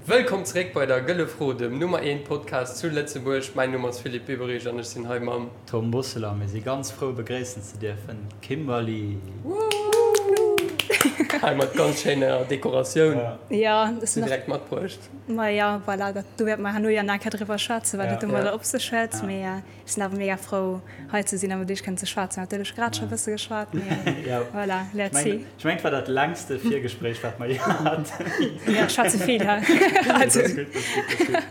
Wëllkomm zeréck bei der Gëlle Fro, dem Nummer 1 Podcast zu Lëtzebuerg. Mäin Numm ass Philippe Biberich an ech sinn hei mam. Tom Bosseler. Mir si ganz frou begréissen ze dierfen d'Kimberly. Hei mat ganz schéiner Dekoratioun. Jo, ech sinn direkt matbruecht. Ma jo, voilà, dat do wäerte mer herno jo nach eng Kéier driwwer schwätzen, wat et domadder op sech huet. Mee ech sinn awer mega frou hei ze sinn a mat iech kënnen ze schwätzen. Natierlech grad scho e bësse geschwat, mee voilà, let's see. Ech mengen, et war dat längste Virgespréich, wat mer jee haten. Jo, ech schwätze vill, he. Dat ass gutt, dat ass gutt, dat ass gutt.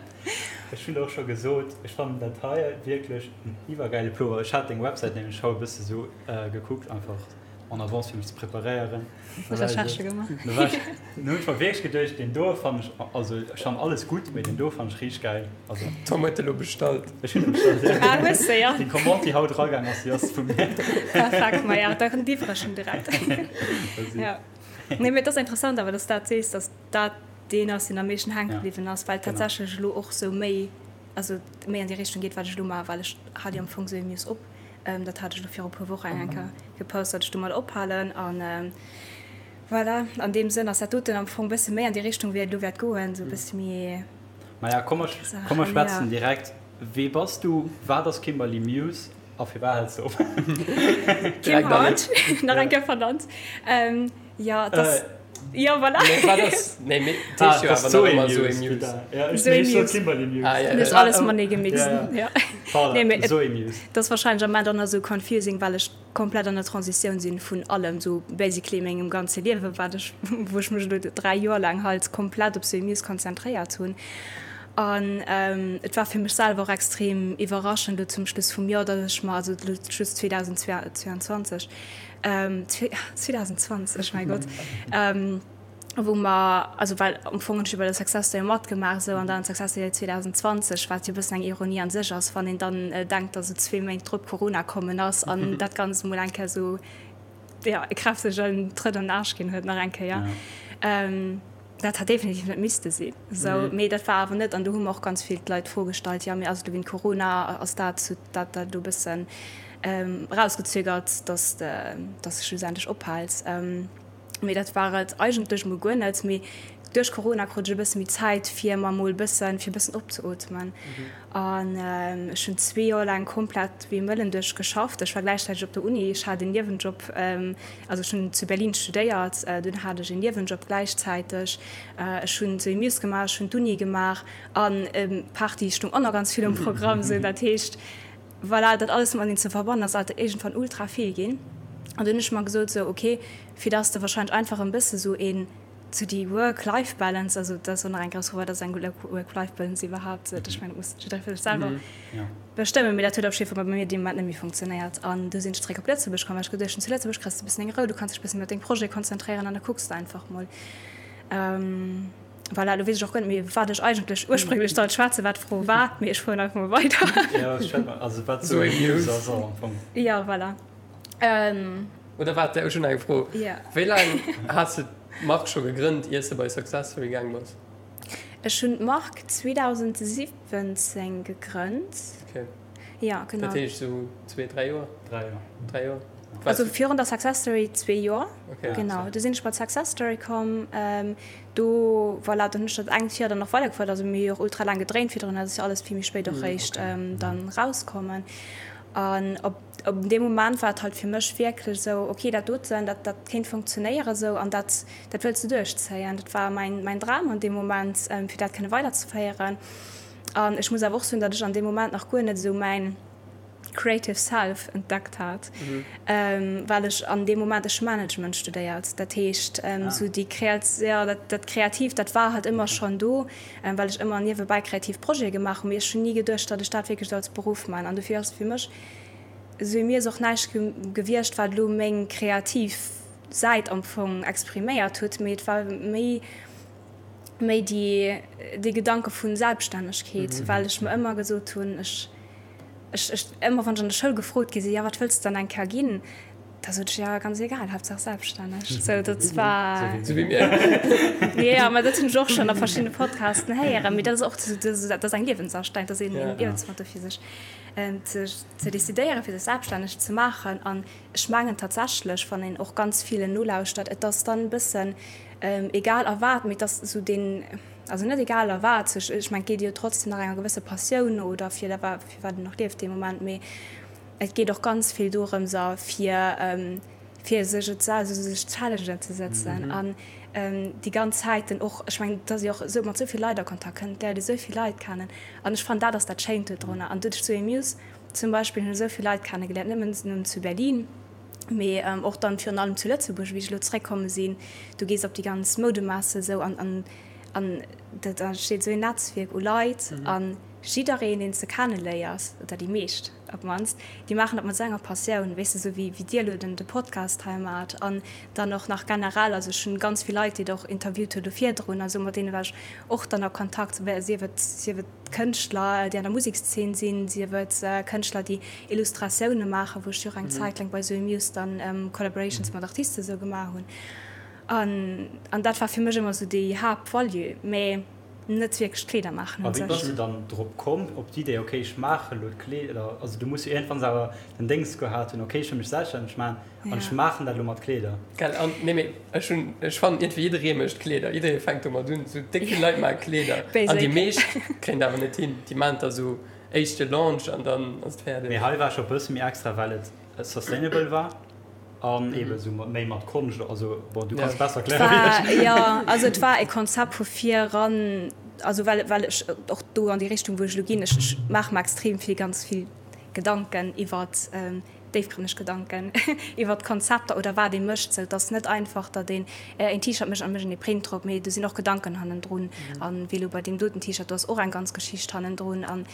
Ech hunn och scho gesot, ech fannen dat hei wierklech en iwwergäile Plover. Ech hat deng Websäit nämlech haut e bësse sou gekuckt, einfach en avance fir mech ze preparéieren. Recherche gemaach. Du hunn ech mer wierklech geduecht, deen do fannen ech, also ech fannen alles gutt, mee deen do fannen ech richteg gäil. Also Tom huet elo bestallt. Ech hunn e bestallt, ja. Ah, hues de, ja. Déi Commande, déi haut eragaang ass, déi ass vu mir. Perfekt, ma ja, da liwwere ech en direkt. Ja. Nee, mee et ass interessant awer, dass s dat sees, dass dat deen ass, deen am meeschten hänke bliwwen ass, well tatsächlech elo och sou méi, also méi an déi Richtung geet, wat ech elo maachen, well ech hale jo am Fong sou Muse op. Dat hat ech elo viru puer Wochen eng Kéier gepost, datt ech domat ophalen. An voilà, an deem Sënn ass dat doten am Fong e bësse méi an déi Richtung, wéi et elo wäert goen, sou e bësse méi. Maja, komm mer, komm mer schwätzen direkt. Wee bass du, wat ass Kimberly Muse a firwat häls de op? Kim Hart, nach eng Kéier vernannt. Jo, et ass, jo, voilà. Nee, wat ass, nee, mee et heescht jo awer nach ëmmer Zoé Muse. Zoé Muse. Ah, ja, ja. Hues alles matenee gemixt, ja. Nee, mee et ass wahrscheinlech am Moment och nach esou confusing, well ech komplett an der Transitioun sinn vun allem, sou basically mengem ganze Liewen, wat ech, wou ech mech elo 3 Joer laang halt komplett op Zoé Muse konzentréiert hunn. An et war fir mech selwer och extrem iwwerraschend elo zum Schluss vum Joer, datt ech mer, also elo Schluss 2022, 2020, mäi Gott, wou mer, also well am Fong hunn ech jo bei der Success Story matgemaach esou an dann Success Story 2020, wat jo e bëssen eng Ironie an sech ass, wann een dann denkt, datt esou zwee Méint drop Corona kommen ass an dat Ganzt emol eng Kéier esou, jo, e kräftegen Trëtt an den Aarsch ginn huet nach eng Kéier. Dat hat definitiv net misste sinn esou, mee dat war awer net. An do hu mer och ganz vill d'Leit d'Fro gestallt, jo, mee ass et elo wéint Corona, ass dat dat dat elo e bëssen erausgezögert, datt de schlussendlech ophäls? Mee dat war et eigentlech mol guer net. Mee duerch Corona krut ech e bësse méi Zäit, fir mer mol bëssen, fir e bëssen opzeootmen. An ech hunn zwee Joer laang komplett wéi e Mëllen duerch geschafft. Ech war gläichzäiteg op der Uni, ech hat en Niewenjob, also ech hunn zu Berlin studéiert, dunn hat ech en Niewenjob gläichzäiteg. Ech hunn Zoé Muse gemaach, ech hunn d'Uni gemaach an Party stoung och nach ganz vill um Programm. Sou dat heescht, Voilà, dat alles mateneen ze verbannen ass alt iergendwann ultra vill ginn. An dunn hunn ech mer gesot, sou ok, fir dass de wahrscheinlech einfach en bësse sou een, sou déi Work-Life-Balance, also dat ass och nach eng grouss Fro, wat ass eng Work-Life-Balance iwwerhaapt, ech mengen dat muss jidderee fir sech selwer bestëmmen, mee dat huet op jidde Fall bei mir dee Moment net méi funktionéiert. An du sinn ech zeréck op Lëtzebuerg komm, well ech geduecht hunn, zu Lëtzebuerg kriss de e bëssen deng Rou, du kanns dech e bëssen méi op deng Projete konzentréieren an da kucks de einfach mol. Voilà, elo weess ech och guer net méi, wat ech eigentlech ursprénglech sollt schwätzen, wat d'Fro war, mee ech fueren einfach mol weider. Jo, schwätz mol, also wat Zoé Muse ass och am Fong. Jo, voilà. Oder waart, ech hunn eng Fro. Jo. Wéi laang has de d'Mark scho gegrënnt, ier s de bei Success Story gaang bass? Ech hunn d'Mark 2017 gegrënnt. Ok. Jo, genau. Dat heescht esou zwee, dräi Joer? Dräi Joer. Dräi Joer. Also virun der Success Story zwee Joer. Okay. Genau, du sinn ech bei d'Success Story komm. Do, voilà, dann hunn ech dat engt Joer dann nach weidergefouert. Also mir hu jo och ultra laang gedréint virdrun, dat ass jo alles vill méi spéit och réischt dann rauskommen. An op op deem Moment war et halt fir mech wierklech esou, okay, dat doten, dat dat kéint funktionéieren esou an dat dat wëlls de duerchzéien. Dat war mäin mäin Dram an deem Moment, fir dat kënne weiderzeféieren. An ech muss awer och soen, datt ech an deem Moment nach guer net esou mäin creative self entdeckt hat, well ech an deem Moment, ech hu Management studéiert, dat heescht esou déi kreat, jo dat dat Kreatiivt, dat war halt ëmmer schonn do, well ech ëmmer niewebäi kreativ Projete gemaach hunn, mee ech hunn ni geduecht, datt ech dat wierklech esou als Beruff man. An dofir ass fir mech esou, mir ass och näischt gewiescht, wat elo meng kreativ Säit am Fong expriméiert huet, mee et war méi, méi déi dee Gedanke vu Selbststännegkeet, well ech mer ëmmer gesot hunn, ech, ech, ech, ëmmer wann ech an der Schoul gefrot gi sinn, jo wat wëlls de dann eng Kéier ginn, da sot ech, jo ganz egal, Haaptsaach selbststänneg. Sou dat war. Sou wéi mir. Jo, mä dat hunn ech och schonn a verschiddene Podcasten héieren, mee dat ass och, dat ass eng Liewensastellung, dat ass een Liewensmotto fir sech ze ze decidéieren, fir sech selbststänneg ze maachen. An ech mengen tatsächlech, wann een och ganz villen nolauschtert, et ass dann e bëssen, egal a wat, mee et ass esou deen. also net egal a wat, ech mengen et geet jo trotzdem nach enger gewësse Passioun no oder fir dat fir wat een och lieft dee Moment, mee et geet och ganz vill dorëms a fir fir sech et also sech Challengen ze sëtzen an déi ganz Zäiten och, ech mengen et ass jo och esou mat esou vill Leit a Kontakt kënnt, léiert ee esou vill Leit kennen an ech fannen dat ass dat Schéint dodrunner an doduerch zu Amuse zum Beispill hunn ech esou vill Leit kennegeléiert, net nëmmen zu Berlin. Mee och dann virun allem zu Lëtzebuerg, wéi ech elo zeréckkomme sinn, du gees op déi ganz Moudemesse esou an an an dat entsteet esou een Netzwierk u Leit a jiddereen, deen s de kenneléiers, oder déi meescht op d'mannst, déi maachen dat mat esou enger Passioun, weess de, esou wéi wéi dir elo den de Podcast hei maacht an dann och nach generell, also ech hunn ganz vill Leit, déi Der och interviewt hutt elo virdrun a sou, mat deene war ech och dann a Kontakt, sief et sief et. Kënschtler, déi an der Musekszeen sinn, sief et Kënschtler, déi Illustratioune maachen, wou ech jo och eng Zäit laang bei Zoe Muse dann Collaborations mat Artiste sou gemaach hunn. An an dat war fir mech ëmmer sou déi Haaptvalue, mä net wierklech d'Kleeder maachen un sech. A wéi bass du dann drop komm, op d'Idee, ok ech maache lo d'Kleeder? Also du muss jo iergendwanns awer den Déngs gehat hunn, ok ech wëll mech selbststänneg maachen an ech maachen dat elo mat Kleeder. Gell, an nee mee Ech hunn, ech fannen iergendwéi jidderee mécht Kleeder, jidderee fänkt domat un, sou déck vill Leit maache Kleeder an déi meescht kréien et awer net hin. Déi maachen da sou éischte Launch an dann ass et fäerdeg. Mee hei war scho bësse méi extra, well et sustainable war an eebe sou méi mat Konscht, also bon, du kanns besser erkläre wéi ech. Jo, also et war e Konzept vu vir eran, also well, well ech och do an déi Richtung wou ech elo ginn, ech, ech maache mer extrem vill, ganz vill Gedanken iwwert déifgrënneg Gedanken iwwert Konzepter oder wat ee mécht. Sou, et ass net einfach, datt een een T-Shirt mécht an mécht een ee Print drop, mee do sinn och Gedanken hannendrun. An wéi elo bei deem doten T-Shirt, do ass och eng ganz Geschicht hannendrun. An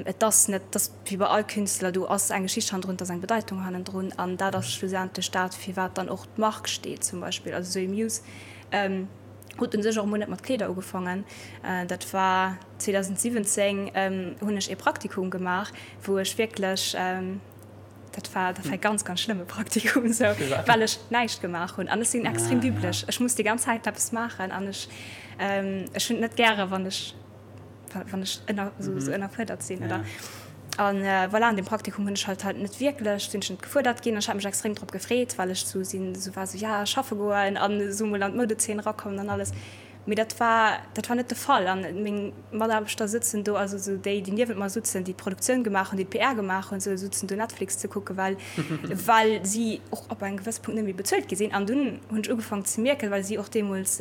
et ass net, et ass wéi bei all Künstler, do ass eng Geschicht hannendrun, et ass eng Bedeitung hannendrun. An dat ass schlussendlech dat, fir wat dann och d'Mark steet zum Beispill. Also Zoé Muse huet u sech och emol net mat Kleeder ugefaangen. Dat war 2017 hunn ech ee Praktikum gemaach, wou ech wierklech, dat war, dat war e ganz, ganz schlëmme Praktikum esou, well ech näischt gemaach hunn. An ech sinn extrem wibbleg, ech muss déi ganz Zäit eppes maachen an ech, ech hunn et net gäre wann ech, wann ech ënner, esou, esou ënnerfuerdert sinn oder. An voilà, an deem Praktikum hunn ech halt halt net wierklech, sinn ech net gefuerdert ginn an ech hat mech extrem drop gefreet, well ech esou sinn, esou war esou, ja schaffe goen an esou mol an d'Moudezeen erakommen an alles. Mee dat war, dat war net de Fall. An meng Mataarbechter sëtzen do, also esou déi, déi niewent mer sutzen, déi d'Produktioun gemaach hunn, déi d'PR gemaach hunn, esou sutzen do Netflix ze kucken, well, well si och ab engem gewësse Punkt net méi bezuelt gi sinn. An dunn hunn ech ugefaangen ze mierken, well si och deemools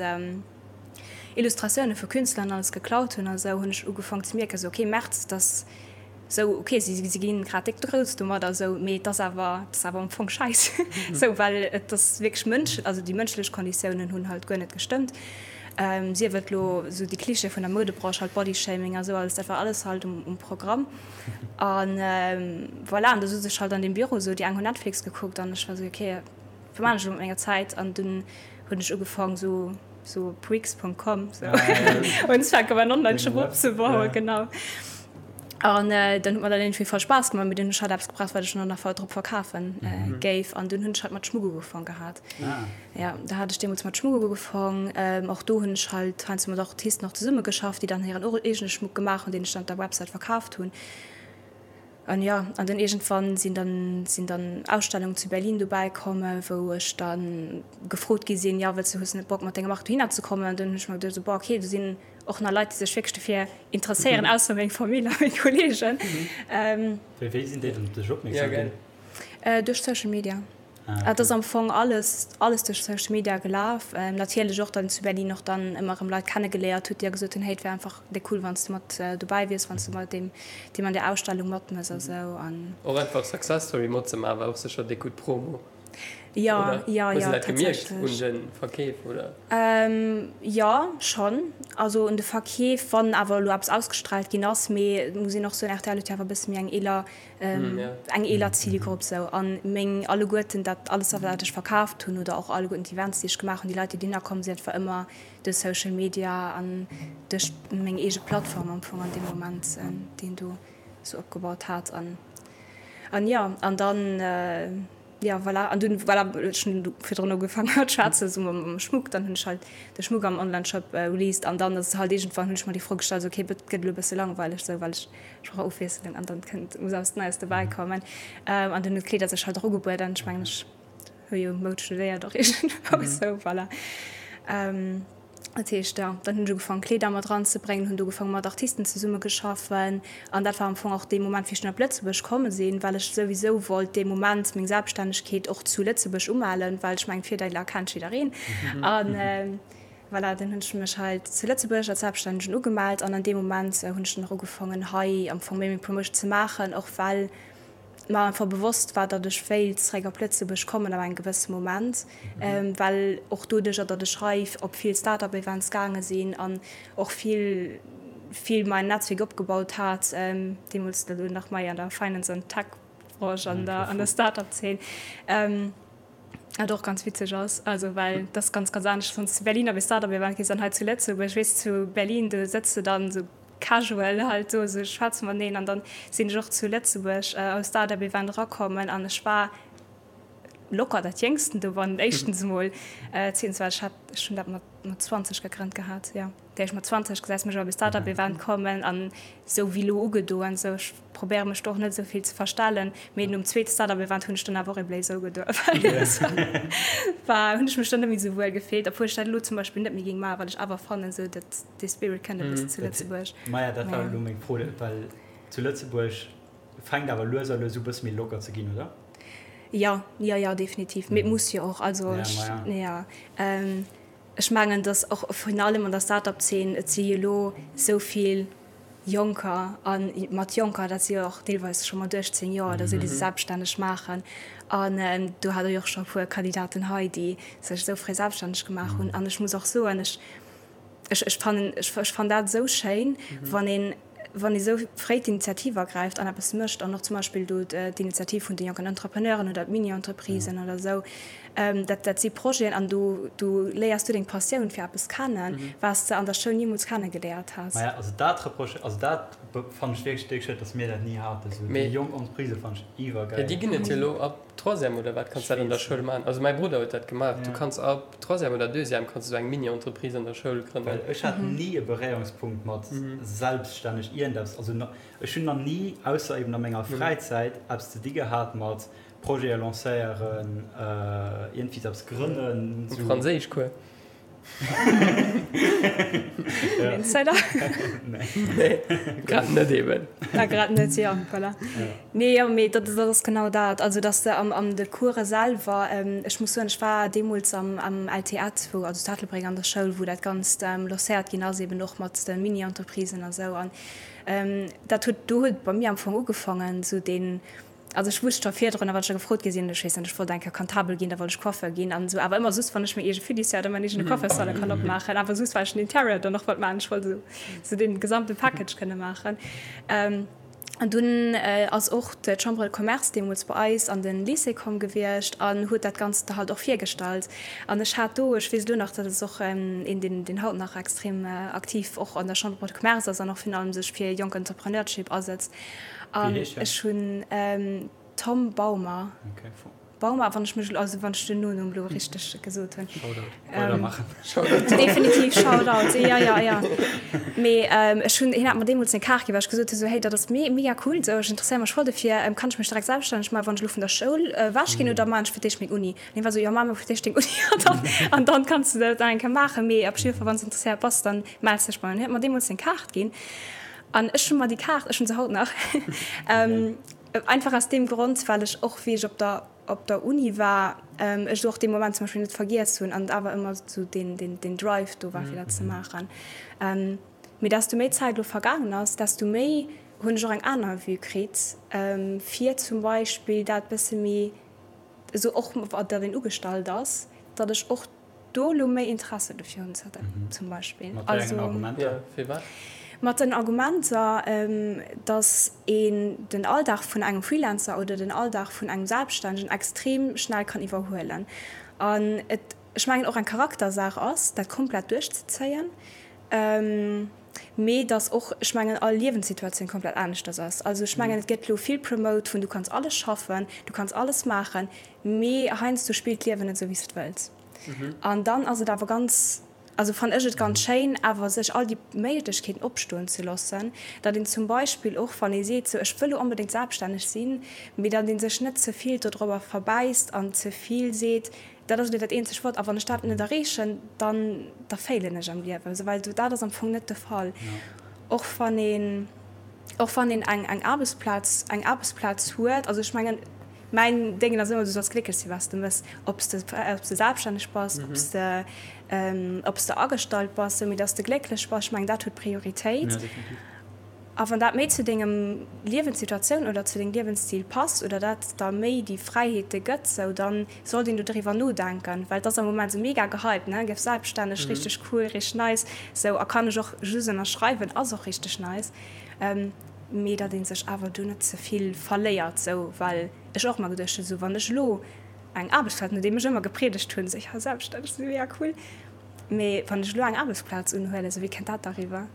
Illustratioune vu Künstler an alles geklaut hunn a sou, hunn ech ugefaangen ze mierken, esou, okay, März, dass, Sou, ok, si si ginn grad déck grouss domadder, sou, mee et ass awer, et ass awer am Fong scheiss, sou, well et ass wierklech mënsch, also déi mënschlech Konditiounen hunn halt guer net gestëmmt. Sief et elo sou déi Klischeeë vun der Moudebranche, halt Bodyshaming a sou alles, dat war alles halt um um Programm. An voilà, an da sot ech halt an deem Büro sou, déi eng hunn Netflix gekuckt an ech war sou, ok, wat maan ech elo mat menger Zäit? An dunn hunn ech ugefaang sou, sou op Wix.com sou unzefänken mäin Online-Shop opzebauen, genau. An dann huet mer dat iergendwéi voll Spaass gemaach, mee dunn hunn ech halt eppes gebraucht, wat ech dann nach drop verkafen géif. An dunn hunn ech halt mat Schmuck ugefaang gehat. Jo, da hat ech deemools mat Schmuck ugefaang. Och do hunn ech halt heiansdo mat Artisten och zesummegeschafft, déi dann hiren eegene Schmuck gemaach hunn, deen ech dann op der Websäit verkaaft hunn. An jo, an dann iergendwann sinn dann sinn dann Ausstellungen zu Berlin dobäi komm, wou ech dann gefrot gi sinn, jo, wëlls du, hues du net Bock mat denger Mark dohinner ze kommen? An dunn hunn ech mer geduecht, esou, boah, okay, do sinn och nach Leit, déi sech wierklech dofir interesséieren, ausser meng Famill a meng Kolleegen. Wéi wéi sinn déi dann op dech opmierksam ginn? Duerch Social Media. Et ass am Fong alles alles duerch Social Media gelaf. Natierlech och dann zu Berlin och dann ëmmer erëm Leit kennegeléiert hutt, déi da gesot hunn, hey, et wär einfach déck cool, wann s du mat dobäi wiers, wann s du bei deem deem an där Ausstellung matmëss a sou. An. Och einfach Success Story matzemaachen war och sécher déck gutt Promo. Jo, jo, jo, tatsächlech. Hues de dat gemierkt un de Verkeef, oder? Jo, schonn. Also un de Verkeef, wann awer elo eppes ausgestraalt ginn ass. Mee et muss een och soen, rtl huet jo awer e bësse méi eng eeler, eng eeler Zilgrupp sou. A meng alleguerten, dat alles wat ech verkaaft hunn oder och alleguerten d'Events, déi ech gemaach hunn, déi Leit, déi dohinner komm sinn, dat war ëmmer duerch Social Media an duerch meng eege Plattform am Fong an deem Moment, déi een do sou opgebaut hat. An, an jo, an dann. Jo, voilà. An dunn, voilà, ech hunn virdrun ugefaangen mat schwätzen, esou mam Schmuck. Dann hunn ech halt de Schmuck am Onlineshop released an dann ass et halt iergendwann, hunn ech mer déi Fro gestallt, esou, okay, et gëtt elo e bësse langweileg, esou, well ech, ech brauch Ofwiesslung an dann kënnt, muss eppes Neies dobäi kommen. An dunn hunn d'Kleeder sech halt och ugebueden. Ech mengen, ech hu jo Moud studéiert och iergendwou, esou, voilà. Dat heescht, jo, dann hunn ech ugefaangen, Kleeder mat eranzebréngen, hunn do ugefaangen, mat Artisten zesummegeschaffen. An dat war am Fong och dee Moment, wéi ech dunn op Lëtzebuerg komme sinn, well ech souwisou wollt dee Moment meng Selbststännegkeet och zu Lëtzebuerg umellen, well ech mengen, d'Virdeeler kennt jiddereen. An voilà, dann hunn ech mech hei zu Lëtzebuerg als Selbststännegen ugemellt an an deem Moment hunn ech dann och ugefaangen, hei am Fong méi meng Promotion ze maachen, och well mer einfach bewosst war, datt ech wéilt zeréck op Lëtzebuerg kommen ab engem gewësse Moment, well och doduercher, datt ech hei op vill Start-up-Events gaange sinn an och vill, vill mäin Netzwierk opgebaut hat, deemools elo nach mei an der Finance an Tech-Branche an der, an der Start-up-Zeen, wat och ganz witzeg ass, also well dat ass ganz, ganz anescht, wann s de zu Berlin op ee Start-up-Event gees an hei zu Lëtzebuerg. Weess, zu Berlin, do sëtz de dann esou casual halt do esou schwätze mateneen an dann sinn ech och zu Lëtzebuerg am Startup Event erakommen an ech war locker dat jéngsten do wann éischtens emol zweetens well ech hat ech hunn dat mat mat 20 gegrënnt gehat jo dat heescht mat 20 gesäis mech op e Startup Event kommen an esou wéi elo ugedoen esou ech probéiere mech do och net esou vill ze verstellen mee nom zweete Startup Event hunn ech dann awer och e Blazer ugedoen well war hunn ech mech dann net méi esou wuel gefillt obwuel ech dat elo zum Beispill net méi géing maachen well ech awer fannen esou dat Dee Spirit kënnt e bëssen zu Lëtzebuerg. Maja, dat war elo meng Fro, well zu Lëtzebuerg fänkt awer lues a lues u bësse méi locker ze ginn, oder? Jo, jo, jo, definitiv. Mee et muss jo och. Also ech, jo, ech mengen, datt och virun allem an der Start-up-Zeen, et si jo elo esou vill Jonker, a mat Jonker, dat si jo och deelweis scho mat 18 Joer oder esou, déi sech selbststänneg maachen. An do hat Der jo och scho e puer Kandidaten hei, déi sech esou fréi selbststänneg gemaach hunn. An ech muss och soen, ech, Ech, ech fannen, ech, ech fannen dat esou schéin, wann een, wann ee sou fréi d'Initiativ ergräift an eppes mécht an och zum Beispill do d'Initiativ vun de jonken Entrepreneuren oder d'Mini-Entreprisen oder esou, dat, dat si Projeten an do, do léiers du deng Passioun fir eppes kennen, wat s de an der Schoul nimools kennegeléiert häss. Maja, also dat reproche, also dat fannen ech wierklech déck schued, dass mir dat ni haten, esou déi jonk Entreprisë fannen ech iwwergäil. Jo, déi ginn et jo elo ab Troisième oder wat kanns dat an der Schoul maachen. Also mäi Brudder huet dat gemaach. Du kanns ab Troisième oder Deuxième kanns du sou eng Mini-Entreprise an der Schoul grënnen. Well ech hat ni e Beréierungspunkt mat selbststänneg iergendeppes. Also ech hunn nach ni, ausser eben a menger Fräizäit, eppes ze di gehat mat Projete lancéieren, iergendwéi eppes grënnen. Am Franséischcours. Insider? Nee, grad net eben. Ah, grad net, jo, voilà. Nee, jo, mee dat, dat ass genau dat. Also, dass de am, an de Course selwer, ech muss soen, ech war deemools am, am LTEtt, wou, also zu Ettelbréck an der Schoul, wou dat Ganzt lancéiert ginn ass, eben och mat de Mini-Entreprisen a sou. An dat huet, do huet et bei mir am Fong ugefaangen, sou deen, Also ech wusst scho virdrun, wann ech da gefrot gi sinn, ech weess net, ech wollt eng Kéier Comptabel ginn, da wollt ech Coiffeur ginn an esou, awer ëmmer just wann ech meng eege Fiduciaire oder mäin eegene Coiffeursalon kann opmaachen, awer just well ech den Interieur dann och wollt maachen, ech wollt esou esou dee gesamte Package kënne maachen. An dunn ass och d'Chambre de Commerce deemools bei eis an de Lycée komm gewiescht an huet dat Ganzt da halt och virgestallt. An ech hat do, ech weess elo nach, dat ass och een, deen deen haut nach extrem aktiv och an der Chambre de Commerce ass an och virun allem sech fir jonk Entrepreneurship asetzt, An ech hunn Tom Baumer. Baumer, wann ech mech, also wann ech den Nonumm elo richteg gesot hunn. Shoutout. Weidermaachen. Definitiv Shoutout, jo, jo, jo. Mee ech hunn, hien hat mer deemools seng Kaart ginn, well ech gesot hunn, esou, hey, dat ass mega cool, esou, ech interesséiere mech voll dofir, kann ech mech direkt selbststänneg maachen, wann ech elo vun der Schoul ewech ginn oder maachen ech fir d'éischt meng Uni? An hien war esou, jo, maach mol fir d'éischt deng Uni an dann, an dann kanns de dat nach eng Kéier maachen, mee op jidde Fall, wann s de interesséiert bass, dann mells dech bei mir. An hien huet mer deemools seng Kaart ginn. An ech hu mer déi Kaart, ech hunn se haut nach, einfach aus deem Grond, well ech och, wéi ech op der, op der Uni war, ech et och dee Moment zum Beispill net vergiess hunn an et awer ëmmer esou deen, deen, deen Drive do war, fir dat ze maachen. Mee desto méi Zäit elo vergaangen ass, desto méi hunn ech och eng aner Vue kritt, fir zum Beispill dat bësse méi esou och, datt een ugestallt ass, datt ech och do elo méi Interesse dofir hunn zum Beispill. Mat wéi engen Argumenter? Firwat? Mat den Argumenter, datt een den Alldag vun engem Freelancer oder den Alldag vun engem Selbststännegen extrem schnell kann iwwerhuelen an et, ech mengen, och eng Charaktersaach ass, dat komplett duerchzezéien, mee datt och, ech mengen, all Liewenssituatioun komplett aneschters ass. Also ech mengen, et gëtt elo vill promote vun du kanns alles schaffen, du kanns alles maachen, Mee heiansdo spillt d'Liewen net esou wéi s de et wëlls. An dann ass et awer ganz, also fannen ech et ganz schéin awer sech all déi Méiglechkeeten opstoen ze loossen, datt een zum Beispill och wann ee seet sou ech wëll elo onbedéngt selbststänneg sinn, mee datt ee sech net ze vill dodrobber verbäisst an ze vill seet. Dat ass elo dat eenzegt Wuert, a wann ech dat net erreechen, dann da failen ech am Liewen, esou, well dat ass am Fong net de Fall. Och wann een, och wann een eng eng Aarbechtsplaz, eng Aarbechtsplaz huet, also ech mengen, mäin Déngen ass ëmmer, du solls glécklech sinn, wat s de méchs, ob s de, ob s de selbststänneg bass, ob s de, ob s de agestallt bass, esou, mee datt s de glécklech bass, ech mengen, dat huet Prioritéit. A wann dat méi zu dengem Liewenssituatioun oder zu dengem Liewensstil passt oder dat der méi déi Fräiheete gëtt, sou, dann sollt een do driwwer nodenken, well et ass am Moment sou mega gehypt, ne, gëff selbststänneg, richteg cool, richteg nice, sou, a kann ech och just ënnerschreiwen, ass och richteg nice, mee datt ee sech awer do net ze vill verléiert, sou, well ech och ëmmer geduecht hunn, sou, wann ech elo eng Aarbechtsplaz, nodeem ech ëmmer gepriedegt hunn, sou, jo, selbststänneg sinn, mega cool. Mee wann ech elo eng Aarbechtsplaz unhuelen, sou wéi kënnt dat da riwwer?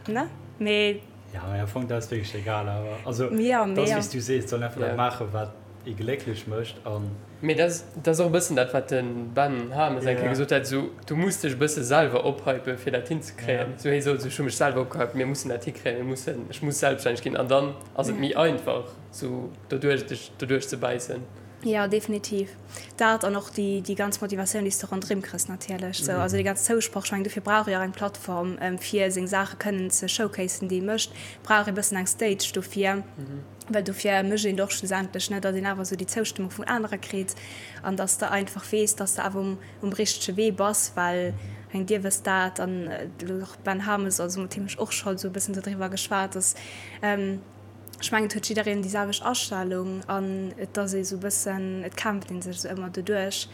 Ne? Mee. Ja, mee am Fong, dat ass wierklech egal awer. Also, ja, dat ass wéi s du sees, et soll een einfach dat maachen, wat ee glécklech mécht an. Mee dat ass och e bëssen dat, wat de Ben Hames eng Kéier gesot hat, sou, du muss dech e bësse selwer ophypen, fir dat hinzekréien. Sou, hie sot, ech hu mech selwer opgehypt, mir mussen dat hikréien, mir mussen, ech muss selbststänneg ginn. An dann ass et méi einfach, sou doduerch, dech doduerch ze bäissen. Jo, definitiv. Dat an och déi, déi ganz Motivatioun, déi s de ronderëm kriss natierlech. Sou, also dee ganz Zousproch, ech mengen, dofir brauch ee jo och eng Plattform, fir seng Saache kënnen ze showcasen, déi ee mécht, brauch ee bëssen eng Stage dofir, well dofir mécht een et och schlussendlech, ne, datt een awer esou déi Zoustëmmung vun anere kritt an datt s de einfach weess, datt s de awer um, um richtege Wee bass, well ech mengen, Dir wësst dat an elo och Ben Hames, also mat him hu ech och scho sou e bëssen dodriwwer geschwat, datt, Ech mengen, et huet jiddereen déi selwecht Astellung an et ass ee sou e bëssen, et kämpft ee sech sou ëmmer doduerch.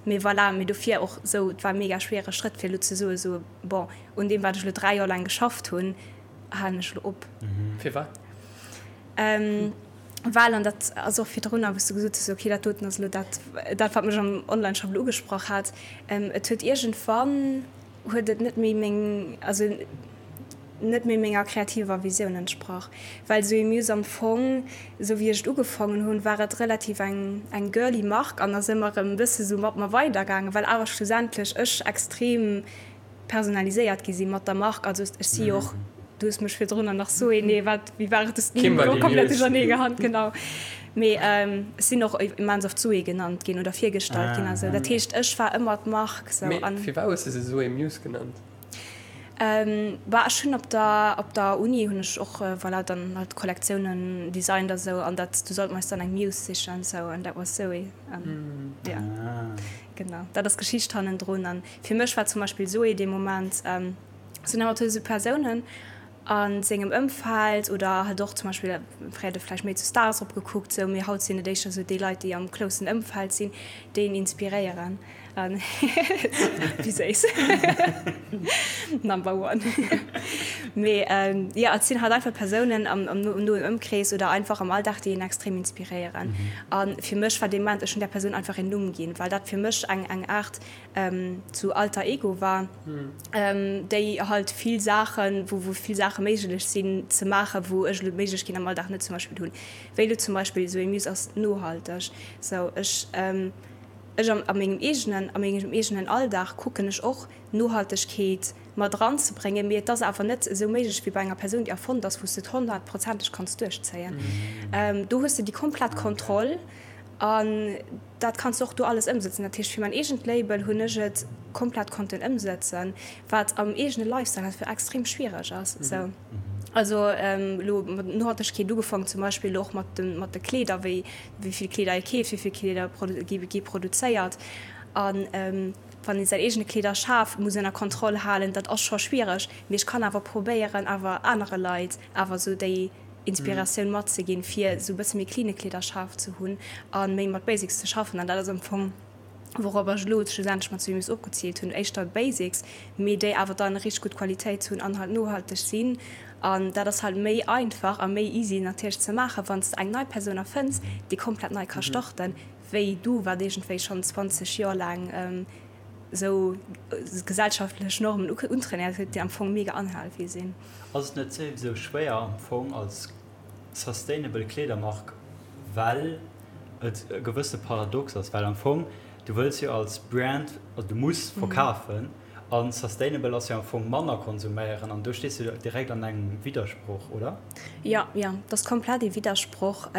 Mee voilà, mee dofir och sou, et war e mega schwere Schrëtt fir elo ze soe sou, bon, un deem wat ech elo 3 Joer laang geschafft hunn, halen ech elo op. Firwat? Well, an dat ass och virdrunner, wou s du gesot hues, okay, dat doten ass elo dat, dat wat mech am Onlineshop elo ugesprach hat, et huet iergendwann, huet et net méi meng, also net méi menger kreativer Visioun entsprach. Well Zoé Muse am Fong, esou wéi ech et ugefaangen hunn, war et relativ eng eng girly Mark an ass ëmmer erëm e bësse sou mat mer weidergaangen, well awer schlussendlech ech extrem personaliséiert gi si mat der Mark. Also ech si jo och, du hues mech virdrunner nach Zoé, nee wat, wéi war et, du hues den Numm komplett duerchernee gehat, genau. Mee ech sinn och immens oft Zoé genannt ginn oder virgestallt ginn a sou. Dat heescht, ech war ëmmer d'Mark sou. Mee firwat hues de se Zoé Muse genannt? Bah, ech hunn op der, op der Uni hunn ech och, voilà, dann halt Kollektiounen designt a sou an dat, du sollt mer eis dann eng Muse sichen sou an that was Zoé. An jo, genau, dat ass d'Geschicht hannendrun. An fir mech war zum Beispill Zoé dee Moment, sinn ëmmer sou Persounen, A sengem Ëmfeld oder halt och zum Beispill, fréier huet e vläicht méi zu Stars eropgekuckt, sou, mee haut sinn et éischter sou déi Leit, déi am closen Ëmfeld sinn, déi een inspiréieren. An wéi séiss. Number one. Mee jo, et sinn halt einfach Persounen am noen Ëmkrees oder einfach am Alldag, déi een extrem inspiréieren. A fir mech war dee Moment, ech hunn där Persoun einfach een Numm ginn, well dat fir mech eng eng Aart zu Alter Ego war, déi halt vill Saachen, wou wou vill Saache méiglech sinn ze maachen, wou ech elo d'Méiglechkeet am Alldag net zum Beispill hunn. Wéi elo zum Beispill esou ee Muse ass nohalteg. Sou ech ech am a mengem eegenen a mengem eegenen Alldag kucken ech och Nohaltegkeet mat eranzebréngen, mee et ass awer net esou méiglech wéi bei enger Persoun déi erfonnt ass, wou s de et honnertprozenteg kanns duerchzéien. Do hues de déi komplett Kontroll an Dat kanns de och do alles ëmsëtzen. Dat heescht, fir mäin eegent Label hunn ech et komplett konnten ëmsëtzen, wat am eegene Lifestyle halt fir extrem schwiereg ass. Sou. Also elo mat Nohaltegkeet ugefaangen, zum Beispill elo och mat de mat de Kleeder, wéi wéi vill Kleeder ee keeft, wéi vill Kleeder produ gi gi produzéiert. An wann ee säin eegene Kleederschaf muss ënner Kontroll halen, dat ass scho schwiereg. Mee ech kann awer probéieren, awer anere Leit awer esou déi Inspiratioun matzeginn, fir esou e bësse méi cleane Kleederschaf ze hunn a méi mat Basics ze schaffen. An dat ass am Fong, wourop ech elo schlussendlech mat Swimmys ofgeziilt hunn, éischter Basics, mee déi awer dann richteg gutt Qualitéit hunn an halt nohalteg sinn. An dat ass halt méi einfach a méi easy natierlech ze maachen, wann s de eng nei Persoun erfënns, déi komplett nei ka starten, wéi du, wat iergendwéi schonn 20 Joer laang esou gesellschaftlech Normen untrainéiert huet, déi am Fong mega unhealthy sinn. Ass et net souwisou schwéier am Fong als sustainable Kleedermark, well et e gewësse Paradox ass, well am Fong du wëlls jo als Brand, also du muss verkafen. An sustainable ass jo am Fong manner konsuméieren an do stees du direkt an engem Widdersproch, oder? Jo, jo, dat ass komplett ee Widdersproch.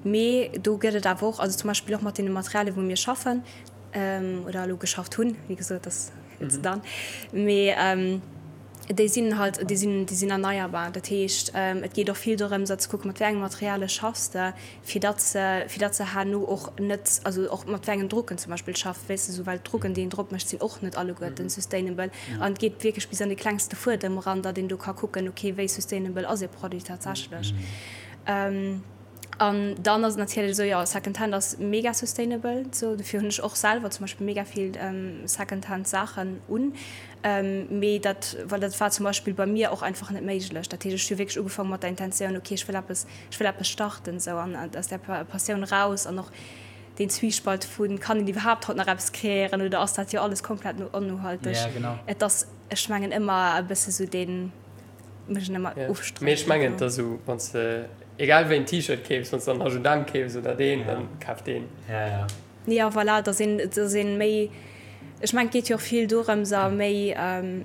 Mee do gëtt et awer och, also zum Beispill och mat deene Materialien, wou mir schaffen oder elo geschafft hunn, wéi gesot, dat ass it's done, mee déi sinn halt, déi sinn, déi sinn erneierbar. Dat heescht, et geet och vill dorëms, ze kucken, mat wéi enge Materialie schaffs de, fir datt se, fir datt se herno och net, also och mat wéi engen Drucken zum Beispill schafft, weess de, esou, well d'Drucken, déi een drop mécht, sinn och net alleguerten sustainable. An et geet wierklech bis an de klengste Fuedem eran, datt een do ka kucken, okay, wéi sustainable ass e Produit tatsächlech. An dann ass et natierlech esou, jo, Secondhand ass mega sustainable, esou, dofir hunn ech och selwer zum Beispill mega vill Secondhand Saachen un. Mee dat, well dat war zum Beispill bei mir och einfach net méiglech. Dat heescht, ech hu wierklech ugefaangen mat der Intentioun, okay, ech wëll eppes, ech wëll eppes starten, esou, an aus där Passioun eraus an och deen Zwiespalt vu kann een iwwerhaapt haut nach eppes kreéieren oder ass dat jo alles komplett onnohalteg? Et ass, ech mengen, ëmmer e bësse sou deen. Mech en ëmmer ofstreiden. Mee ech mengen et ass esou, wann s de egal wéi en T-Shirt keefs, wann s de dann H&M keefs oder deen, dann kaf deen. Ja, ja. Jo, voilà, dass een, dass een méi, ech mengen et geet jo och vill dorëms a méi,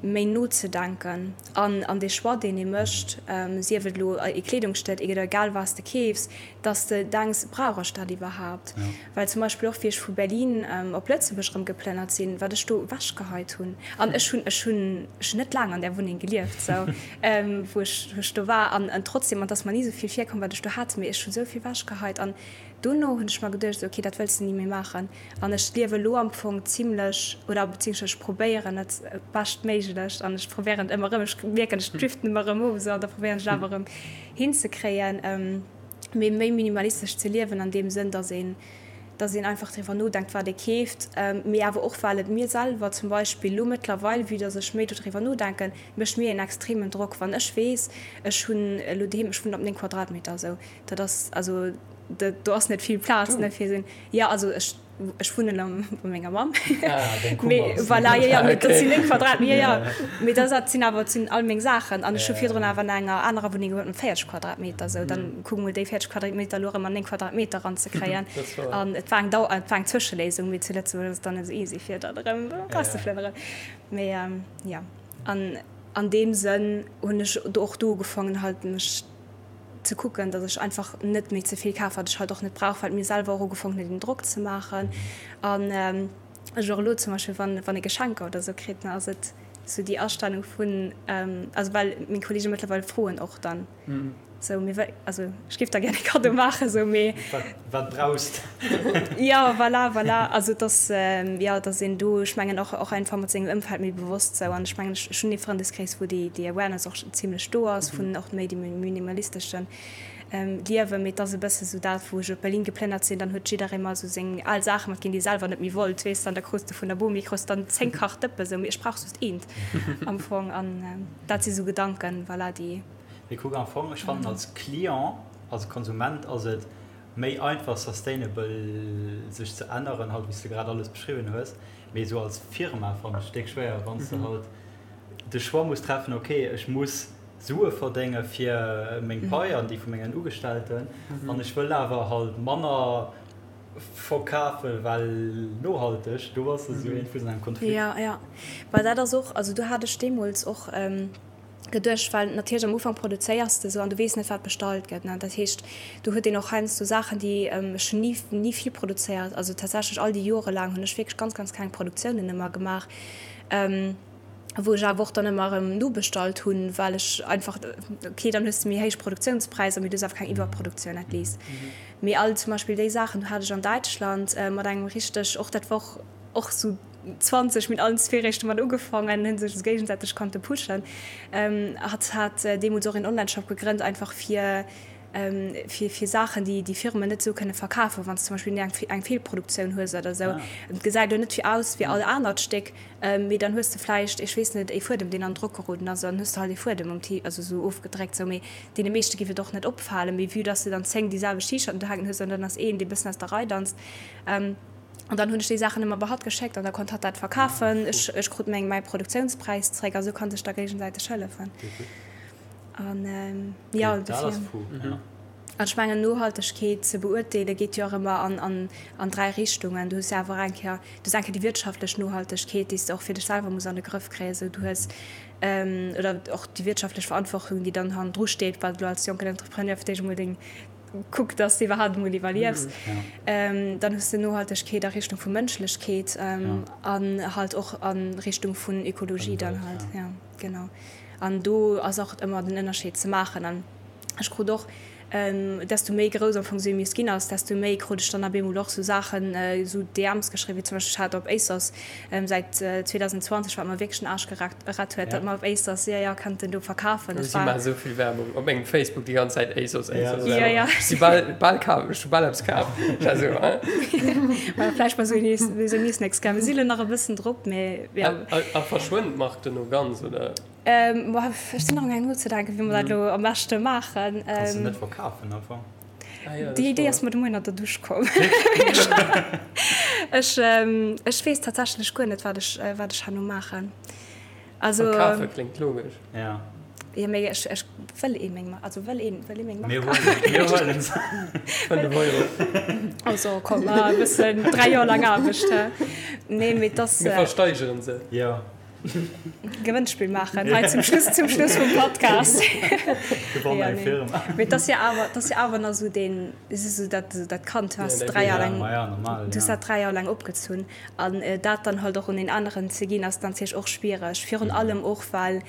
méi nozedenken an, an dee Choix deen ee mécht, sief et elo ee Kleedungsstéck oder egal wat s de keefs, dass de denks, brauch ech dat iwwerhaapt? Well zum Beispill och wéi ech vu Berlin op Lëtzebuerg erëm geplënnert sinn, wat ech do ewechgeheit hunn. An ech hunn, ech hunn, ech hunn net laang an där Wunneng gelieft, sou, wou ech, wou ech do war. An trotzdem, an et ass mer ni esou vill virkomm, wat ech do hat, mee ech hu sou vill ewechgeheit. An dono hunn ech mer geduecht, ok, dat wëlls de ni méi maachen. An ech liewe elo am Fong zimlech, oder beziehungsweise ech probéieren et beschtméiglech an ech probéieren et ëmmer erëm, ech mierken, ech driften ëmmer erëm of, sou, an da probéieren ech et awer erëm hinzekréien. Mee méi minimalistesch ze liewen an deem Sënn, dass een, dass een einfach driwwer nodenkt, wat ee keeft, mee awer och well et mir selwer zum Beispill elo mëttlerweil, vue dass ech méi dodriwwer nodenken, mécht mir een extremen Drock, wann ech weess, ech hunn elo doheem, ech wunnen op 9 Quadratmeter esou, dat ass also, do ass net vill Plaz, ne, fir esou, jo also ech. Ech wunnen am, bei menger Mamm. Ah, deng Kummer Mee voilà, jo, jo, mee dat sinn 9 Quadratmeter, jo, jo. Mee dat, dat sinn awer, dat sinn all meng Saachen. An ech hu virdrun awer an enger anerer Wunneng gewunnt mat 40 Quadratmeter. Sou, dann kuck mol déi 40 Quadratmeter elo erëm an 9 Quadratmeter eranzekréien. An et war eng Dau, et war eng Zwëscheléisung, mee zu Lëtzebuerg ass et dann net esou easy, fir dat erëm erauszeflënneren. Mee jo, an an deem Sënn hunn ech do och do ugefaangen halt mech ze kucken, datt ech einfach net méi ze vill kaf, wat ech halt och net brauch, well et mir selwer och ugefongen huet, een Drock ze maachen. An ech och elo zum Beispill, wann, wann ee Geschenker oder esou kritt, ne, ass et sou déi Astellung vun, also well meng Kollege mëttlerweil froen och dann sou, mee wéi, also ech géif der gär e Kaddo maachen, sou, mee. Wat, wat brauchs de? Jo, voilà, voilà. Also et ass, jo, datt een do, ech mengen och, och einfach mat sengem Ëmfeld méi bewosst sou an ech mengen, ech, ech hunn ee Frëndeskrees, wou déi, déi Awareness och zimlech do ass, vun och méi dem minimalisteschen Liewen. Mee et ass e bësse sou dat, wou ech op Berlin geplënnert sinn, dann huet jidderee mer sou seng al Saache matginn, déi e selwer net méi wollt, weess de, an da krus de vun der Bomi krus dann 10 Kach Dëppe sou, mee ech brauch just eent am Fong. An dat si sou Gedanken, voilà, déi. Mee kuck, am Fong, ech fannen als Client, als Konsument ass et méi einfach sustainable sech ze änneren, halt wéi s de grad alles beschriwwen hues, mee sou als Firma fannen ech déck schwéier, wann s de halt de Choix muss treffen, ok ech muss Sue verdénge fir meng Pai an déi vu mengen Ugestellten an ech wëll awer halt manner verkafe well nohalteg, do bass de sou iergendwou an engem Konflikt. Jo, jo, well dat ass och, also do hat ech deemools och geduecht, well natierlech am Ufank produzéiers de sou an du weess net wat bestallt gëtt, ne, dat heescht do huet een och heiansdo Saachen déi, ech hunn ni ni vill produzéiert, also tatsächlech all déi Jore laang hunn ech wierklech ganz ganz kleng Produktiounen ëmmer gemaach, wou ech awer och dann ëmmer erëm nobestallt hunn, well ech einfach, okay, dann hues de méi héich Produktiounspräisser, mee du hues awer keng Iwwerproduktioun at least. Mee all zum Beispill déi Saachen, do hat ech an Däitschland mat engem richteg, och dat war och och sou 20, mir hunn allen zwee réischt domat ugefaangen, hunn sech esou géigesäiteg konnte pushen. Hatt hat deemools och een Onlineshop gegrënnt, einfach fir fir fir Saachen, déi déi Firmen net esou kënne verkafen, wann s de zum Beispill eng eng Feelproduktioun hues oder esou. Et gesäit elo net wéi aus wéi all anert Stéck, Mee dann hues de vläicht, ech weess net, ee Fuedem, deen an Drock geroden ass, an dann hues de halt ee Fuedem um T, also esou ofgedréckt, sou. Mee deene meeschte giff et och net opfalen. Mee vue dass de dann 10 déi selwecht T-Shirten do hänken hues, an dann ass een, dee bëssen aus der Rei danzt. An dann hunn ech déi Saachen ëmmer bei hatt geschéckt an da konnt hatt dat verkafen. Ech, ech krut meng, mäi Produktiounspräis zréck a sou kann sech da géigesäiteg hëllefen. An, jo, dofir. An ech mengen, Nohaltegkeet ze beurteele geet jo och ëmmer an, an 3 Richtungen. Du hues jo awer eng Kéier, du hues eng Kéier déi wirtschaftlech Nohaltegkeet, déi s de och fir dech selwer muss an de Grëff kréien. Esou du hues, oder och déi wirtschaftlech Verantwortung, déi dann hannendru steet, wat elo als jonken Entrepreneur fir d'éischt emol deng, kuck, dass de iwwerhaapt emol iwwerliefs. Dann hues de Nohaltegkeet a Richtung vu Mënschlechkeet an halt och a Richtung vun Ökologie dann halt. Jo, genau. An do ass och ëmmer den Ënnerscheed ze maachen. An ech krut och, desto méi grouss am Fong Semius ginn ass, desto méi krut ech dann ab eemol och sou Saachen, sou DMs geschriwwen, wéi zum Beispill, ech hat op ASOS säit 2020, wat mer wierklech den Aarsch gerett huet, datt mer op ASOS, jo, jo, könnten do verkafen. Ech war. Si maachen esou vill Werbung op mengem Facebook déi ganz Zäit, ASOS, ASOS, Jo, jo. Ech si bal, bal kaf, ech hu bal eppes kaf. Ech war esou, hein? Well vläicht bei sou Semius nächst Kéier. Mir si lo nach e bëssen drop, mee jo. A verschwënnt d'Mark dono ganz, oder? Ech sinn nach amgaang nozedenken, wéi mer dat elo am beschte maachen. Kanns de net verkafen am Fong? Déi Idee ass mer de Moien an der Dusch komm. Ech ech weess tatsächlech guer net, wat ech wat ech herno maachen. Also. Verkafe kléngt logesch. Ja. Jo, mee ech ech wëll ee meng also wëll een wëll ee meng Mark kafen? Mir huelen se. 5 Euro. Also komm, e bëssen 3 Joer laang Aarbecht, hä? Nee, mee 't ass. Mir versteigeren se. Jo. Gewënnspill maachen hei zum Schluss zum Schluss vum Podcast. Gewann eng Firma. Mee et ass jo awer, et ass jo awer nach esou deen, et ass esou dat, dat Kand, du has 3 Joer laang, du hues dat 3 Joer laang opgezunn an dat dann halt och un een aneren ze ginn, ass natierlech och schwiereg. Virun allem och well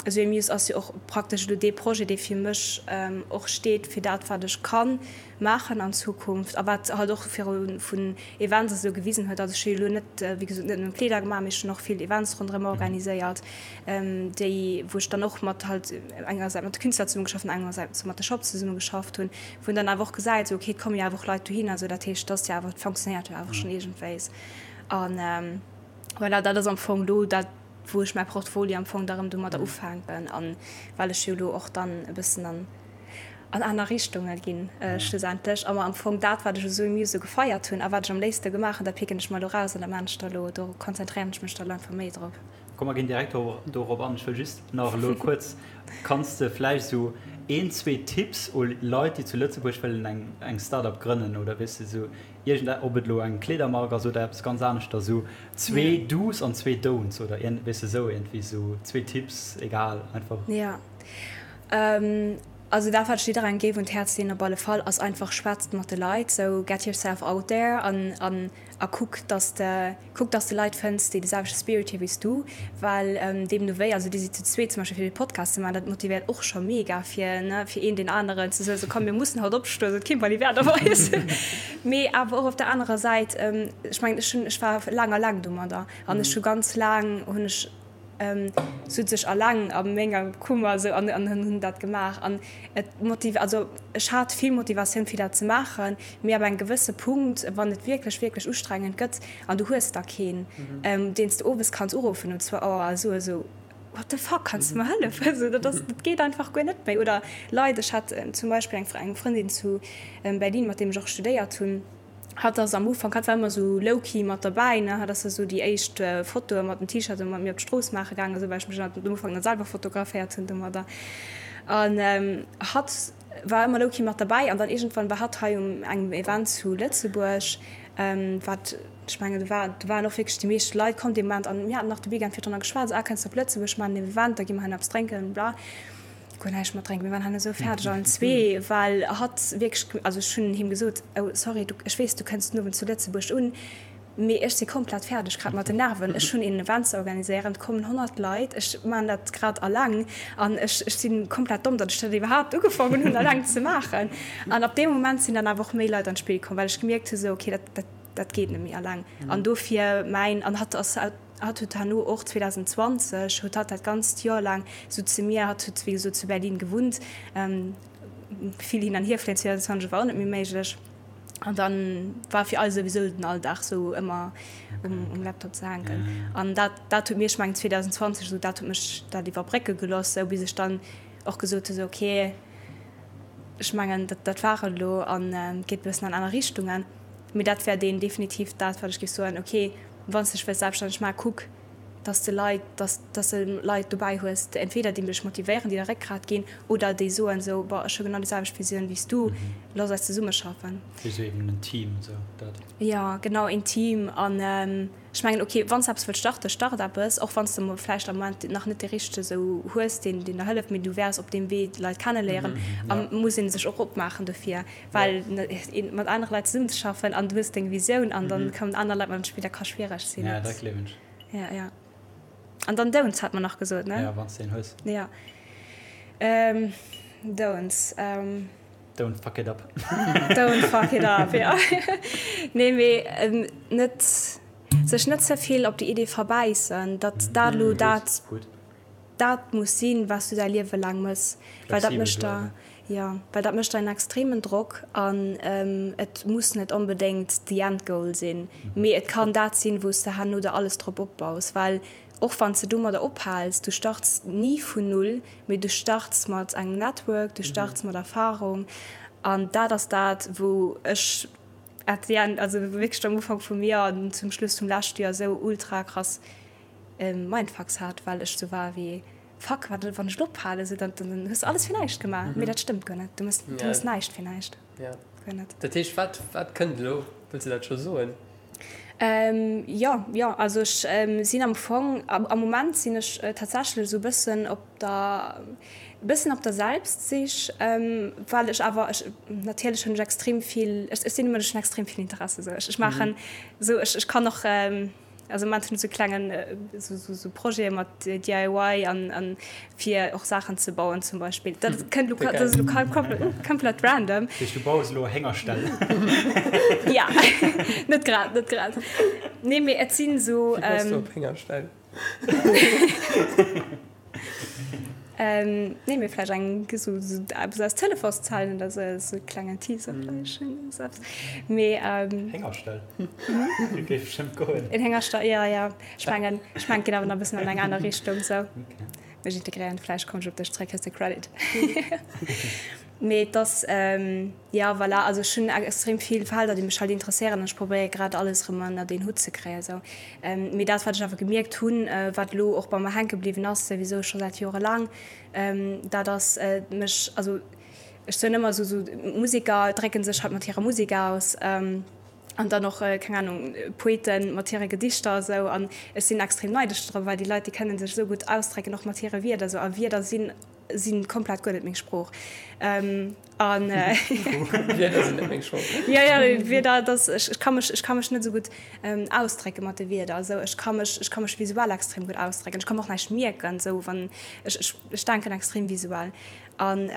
esou ee Muse ass jo och praktesch elo dee Projet, dee fir mech och steet fir dat wat ech kann maachen an Zukunft a wat halt och viru vun Events esou gewisen huet. Also ech hu jo elo net, wéi gesot, net nëmmen Kleeder gemaach, mee ech hunn och vill Events ronderëm organiséiert, déi wou ech dann och mat halt engersäits mat de Künstler zesummegeschafft hunn, engersäits mat de Shops zesummegeschafft hunn, wou een dann awer och gesäit, esou okay, et komme jo awer och Leit dohinner, esou dat heescht, et ass jo awer, et fonctionnéiert jo awer schonn iergendwéis. An voilà, dat ass am Fong elo dat, wou ech mäi Portfolio am Fong da rëm domadder ufänken an well ech jo elo och dann e bëssen an an aner Richtunge ginn schlussendlech a mer am Fong dat, wat ech esou im Museau gefeiert hunn a wat ech am léifste gemaach hunn, dat picken ech mer elo raus an dat maachen ech da elo, do konzentréieren ech mech da elo einfach méi drop. Komm mer ginn direkt dorop an. Ech wëll just nach elo kuerz, kanns de vläicht esou een, zwee Tipps u Leit, déi zu Lëtzebuerg wëllen eng eng Start-up grënnen oder weess de esou iergend, ob et elo eng Kleedermark ass oder eppes ganz aneschters, esou zwee Do's an zwee Don'ts oder weess de esou iergendwéi esou zwee Tipps, egal, einfach. Jo. Also dat wat ech jidderengem géif un d'Häerz leeën op alle Fall ass einfach, schwätzt mat de Leit, sou get yourself out there an an a kuck dass de kuck dass de Leit fënns déi de selwechte Spirit hu wéi s du, well deemno wéi, also dir sidd zu zweet zum Beispill fir dee Podcast ze maachen, dat motivéiert och scho mega fir ne fir een deen aneren ze soen, sou komm mir mussen haut opstoen, sou et keen Baliwert op eis. Mee awer och op der anerer Säit, ech mengen ech hunn ech war laang alleng domadder an ech hu ganz laang hunn ech sot sech alleng a menger Kummer esou an an hunn dat gemaach an et motiv also ech hat vill Motivatioun fir dat ze maachen, mee ab engem gewësse Punkt wann et wierklech wierklech ustrengend gëtt an du hues da keen deen s de owes kanns uruffen um zwou Auer a soe sou what the fuck kanns de mer hëllefen esou dat ass dat geet einfach guer net méi oder Leit ech hat zum Beispill eng eng Frëndin zu Berlin mat deem ech och studéiert hunn. Hatt ass am Ufank, hatt war ëmmer sou low-key mat derbäi, ne, hatt ass da sou déi éischt Fotoe mat dem T-Shirt mat mir op d'Strooss maache gaangen, esou, well ech mech am Ufank net selwer fotograféiert hunn domadder. An hatt war ëmmer low-key mat derbäi an dann iergendwann war hatt hei um engem Event zu Lëtzebuerg, wat, ech mengen, do war, do waren och wierklech déi meescht Leit komm dee Moment an mir haten nach de Weekend virdrunner geschwat, sou, ah, kënns de op Lëtzebuerg, maachen en Event, da gi mer hei nach eppes drénken, bla. Guer näischt mat drénken. Mir waren herno esou fäerdeg allen zwee, well hatt wierklech, also ech hunn him gesot, oh sorry, du, ech weess, du kënns den Owend zu Lëtzebuerg un, mee ech si komplett fäerdeg grad mat den Nerven. Ech hunn een Event ze organiséieren, et kommen 100 Leit, ech maachen dat grad alleng an ech, ech si komplett domm, datt ech dat iwwerhaapt ugefaangen hunn alleng ze maachen. An ab deem Moment sinn dann awer och méi Leit an d'Spill komm, well ech gemierkt hu sou, okay, dat, dat, dat geet net méi alleng. An dofir mäin, an hatt ass Hatt huet herno och 2020 huet hatt dat ganzt Joer laang sou zu mir, hatt huet wéi gesot zu Berlin gewunnt, vill hin an hier fléien 2020 war och net méi méiglech an dann war fir eis souwisou den Alldag sou ëmmer um Laptop ze hänken an dat dat huet mir, ech mengen 2020 esou, dat huet mech dat iwwerbrécke geloss sou bis ech dann och gesot hu sou okay ech mengen dat dat war et elo an geet e bëssen an aner Richtungen, mee dat wär deen definitiv dat wat ech géif soen okay. Wann s dech wëlls selbststänneg maachen, kuck, Dass de Leit, dass, dass de Leit dobäi hues, entweder déi dech motivéieren, déi der Réckgrat ginn, oder déi soen esou, Boah, ech hu genau déi selwecht Visioun wéi s du, looss eis zesummeschaffen. Wéi sou eben en Team, esou dat. Jo, genau, een Team. An ech mengen, ok, wann s de eppes wëlls starten, start eppes, och wann s de vläicht am Moment nach net dee Richtege esou hues, deen, deen der hëlleft, mee du wäers op deem Wee Leit kenneléieren a muss ee sech och opmaachen dofir, well mat anere Leit zesummenzeschaffen an du hues deng Visioun an dann kommen aner Leit mat an d'Spill, dat ka schwiereg sinn. Ja, dat gleewen ech. Ja, ja. An dann Don'ts hat mer nach gesot, ne? Ja, wann s de een hues. Ja. Ähm, Don'ts. Ähm. Don't fuck it up. Don't fuck it up, ja. Nee, mee ähm, net, sech net ze vill op déi Idee verbäissen, datt dat elo dat. Gutt. Dat muss sinn, wat s du däi Liewe laang mëss, well dat mécht der, jo, well dat mécht der en extremen Drock an et muss net onbedéngt the end goal sinn, mee et kann dat sinn, wou s de herno der alles drop opbaus, well och wann s de domadder ophals, du starts ni vun null, mee du starts mat engem Network, du starts mat Erfarung an dat ass dat, wou ech at the end, also wierklech am Ufank vum Joer an zum Schluss vum leschte Joer esou ultra krass Mindfucks hat, well ech sou war wéi, Fuck, wat wann ech elo ophalen, sou dann dann hues de alles fir näischt gemaach. Mee dat stëmmt guer net, du mëss du mëss näischt fir näischt, guer net. Dat heescht, wat wat kënnt elo? Wëlls de dat scho soen? Jo, jo, also ech sinn am Fong, am Moment sinn ech tatsächlech esou e bëssen op der, e bëssen op der Selbstsich, well ech awer, ech natierlech hunn ech extrem vill, ech sinn e Mënsch, ech hunn extrem vill Interesse sou, ech maachen sou, ech ech kann och, Also am Moment hunn ech sou klengen sou Projete mat DIY an an fir och Saachen ze bauen zum Beispill. Dat kënnt elo dat ass elo komplett random. Dat heescht du baus elo Héngerställ? Ja, net grad, net grad. Nee mee et sinn sou. Wéi baus du op Héngerställ? Nee, mee vläicht eng sou eppes aus Telefonszellen oder sou, sou e klengen Teaser vläicht sou eppes. Mee. Héngerstall? Dat géif bestëmmt goen. En Héngerstall, jo, jo. Ech mengen, ech mengen, et geet awer nach e bëssen an eng aner Richtung sou. Mech integréieren, vläicht kommen ech op dech zréck, hues de Credit. Mee et ass, jo, voilà, also ech hunn extrem vill Felder, déi mech halt interesséieren an ech probéiere grad alles erëm ënnert een Hutt ze kréien esou. Mee dat, wat ech awer gemierkt hunn, wat elo och bei mer hänke bliwwen ass, souwisou scho säit jorelaang, dat ass mech, also ech soen ëmmer esou, esou Museker drécke sech halt mat hirer Musek aus an dann och, keng Ahnung, Poeten mat hire Gedichter esou an ech sinn extrem neidesch drop, well déi Leit, déi kënne sech esou gutt ausdrécken, och mat hire Wierder esou a Wierder sinn sinn komplett guer net meng Sprooch an Wierder sinn net meng Sprooch. Jo jo Wierder dass ech ech ka mech ech ka mech net esou gutt ausdrécke mat de Wierder esou ech ka mech ech ka mech visuell extrem gutt ausdrécken ech ka mer och näischt mierken esou wann ech ech ech denken extrem visuell an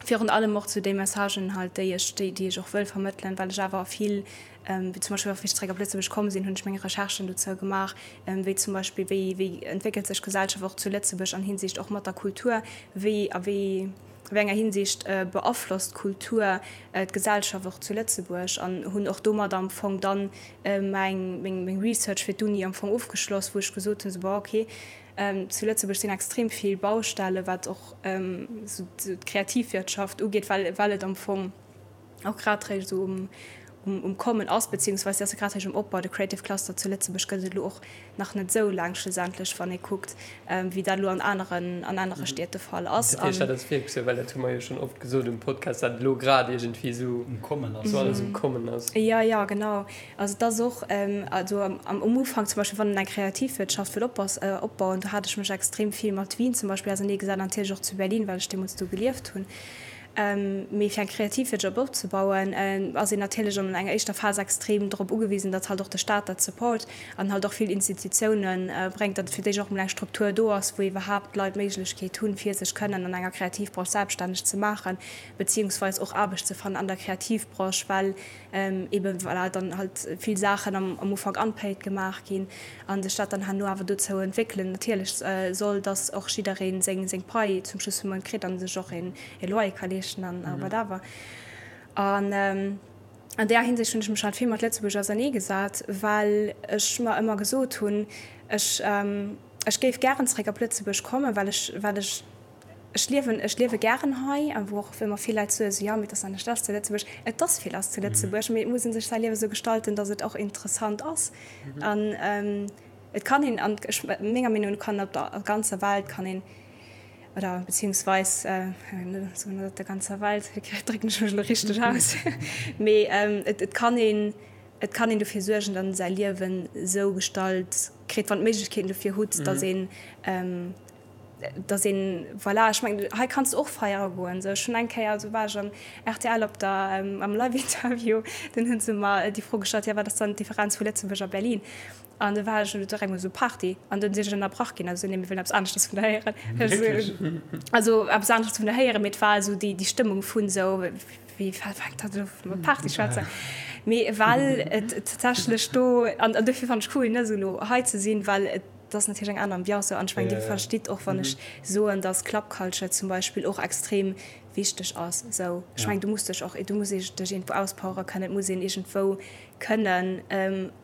virun allem och zu déi Messagen halt déi ech déi déi ech och wëll vermëttelen well ech awer vill wéi zum Beispill och wéi ech zeréck op Lëtzebuerg komm sinn hunn ech meng Recherchen dozou gemaach wéi zum Beispill wéi wéi entwéckelt sech d'Gesellschaft och zu Lëtzebuerg an Hinsicht och mat der Kultur, wéi a wéi wéi enger Hinsicht beaflosst d'Kultur d'Gesellschaft och zu Lëtzebuerg an hunn och domat am Fong dann meng meng meng Research fir d'Uni am Fong ofgeschloss, wou ech gesot hunn, sou bon okay, zu Lëtzebuerg sinn extrem vill Baustelle wat och sou d'Kreativwirtschaft ugeet, well well et am Fong och grad réischt esou um um Kommen ass, beziehungsweise ass e grad réischt um Opbau. De Creative Cluster zu Lëtzebuerg gëtt et elo och nach net esou laang schlussendlech, wann ee kuckt, wéi dat elo an aneren, an anere Stied de Fall ass. Dat heescht, dat ass wierklech esou, well dat hu mer jo schonn oft gesot um Podcast, dat elo grad iergendwéi esou um Kommen ass, esou alles um Kommen ass. Jo, jo, genau. Also et ass och, also am Ufank zum Beispill, wann een eng Kreativwirtschaft wëll opbauen, do hat ech mech extrem vill mat Wien zum Beispill auserneegesat an natierlech och zu Berlin, well ech deemools do gelieft hunn. Mee fir eng Kreativwirtschaft opzebauen, ass een natierlech an enger éischter Phas extrem drop ugewisen, datt halt och de Staat dat support an halt och vill Institutioune bréngt, datt fir d'éischt och emol eng Struktur do ass, wou iwwerhaapt d'Leit d'Méiglechkeet hunn, fir sech kënnen an enger Kreativbranche selbststänneg ze maachen, beziehungsweis och Aarbecht ze fannen an der Kreativbranche, well eben voilà dann halt vill Saachen am Ufank unpaid gemaach ginn a sech dat dann herno awer dozou entwéckelen natierlech soll, dass och jidderee seng seng Pai zum Schluss vum Mount kritt a sech och een e Loyer ka leeschten an whatever. An an där Hinsicht hunn ech mech halt vill mat Lëtzebuerg ausernee gesat, well ech mer ëmmer gesot hunn, ech ech géif gären zeréck op Lëtzebuerg kommen, well ech well ech Ech liewen, ech liewe gären hei, a wou och ëmmer vill Leit soen, esou, jo, mee et ass anescht lass zu Lëtzebuerg. Et ass vill lass zu Lëtzebuerg, mee et muss ee sech säi Liewe sou gestalten, datt et och interessant ass. An. Et kann een, an ech, menger Meenung no kann op der ganzer Welt kann een, oder beziehungsweis, soen net op der ganzer Welt, drécken ech mech elo richteg aus, mee et kann een, et kann een dofir suergen, datt een säi Liewen esou gestalt kritt, wann d'Méiglechkeeten dofir hutt, datt een, datt een, voilà, ech mengen, hei kanns de och feiere goen. Esou, ech hunn eng Kéier, do war ech am rtl op der, am Live-Interview, dunn hu se mer déi Fro gestallt, jo wat ass dann d'Differenz vu Lëtzebuerg a Berlin? An du war ech direkt emol esou Party an dunn sinn ech ënnerbrach ginn, also nee mir wëllen eppes aneschters vun der héieren. Also eppes aneschters vun der héieren, mee et war esou déi déi Stëmmung vun esou wéi fänkt dat elo u mat Party schwätzen. Mee well et tatsächlech do an an dofir fannen ech cool ne esou elo hei ze sinn, well et ass natierlech eng aner Ambiance an ech mengen dir verstitt och wann ech soen, datt Club Culture zum Beispill och extrem wichteg ass esou. Ech mengen du muss dech och du muss dech iergendwou auspowere kënnen, et muss een iergendwou kënnen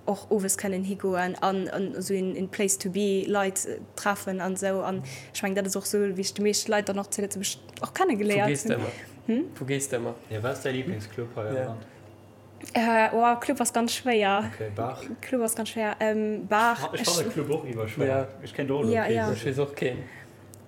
och owes kënnen higoen an esou een Place to be Leit treffen an esou an ech mengen dat ass och esou wéi ech déi meescht Leit dann och zu Lëtzebuerg och kenne geléiert hunn. Wou gees de ëmmer? Hm? Wou gees de ëmmer? Jo, wat ass däi Liblingsclub hei am Land? Oh, Club ass ganz schwéier. Okay, Bar? Club ass ganz schwéier. Bar. Ech fannen Club och iwwer schwéier. Ech kéint och elo kee soen. Ech weess och keen.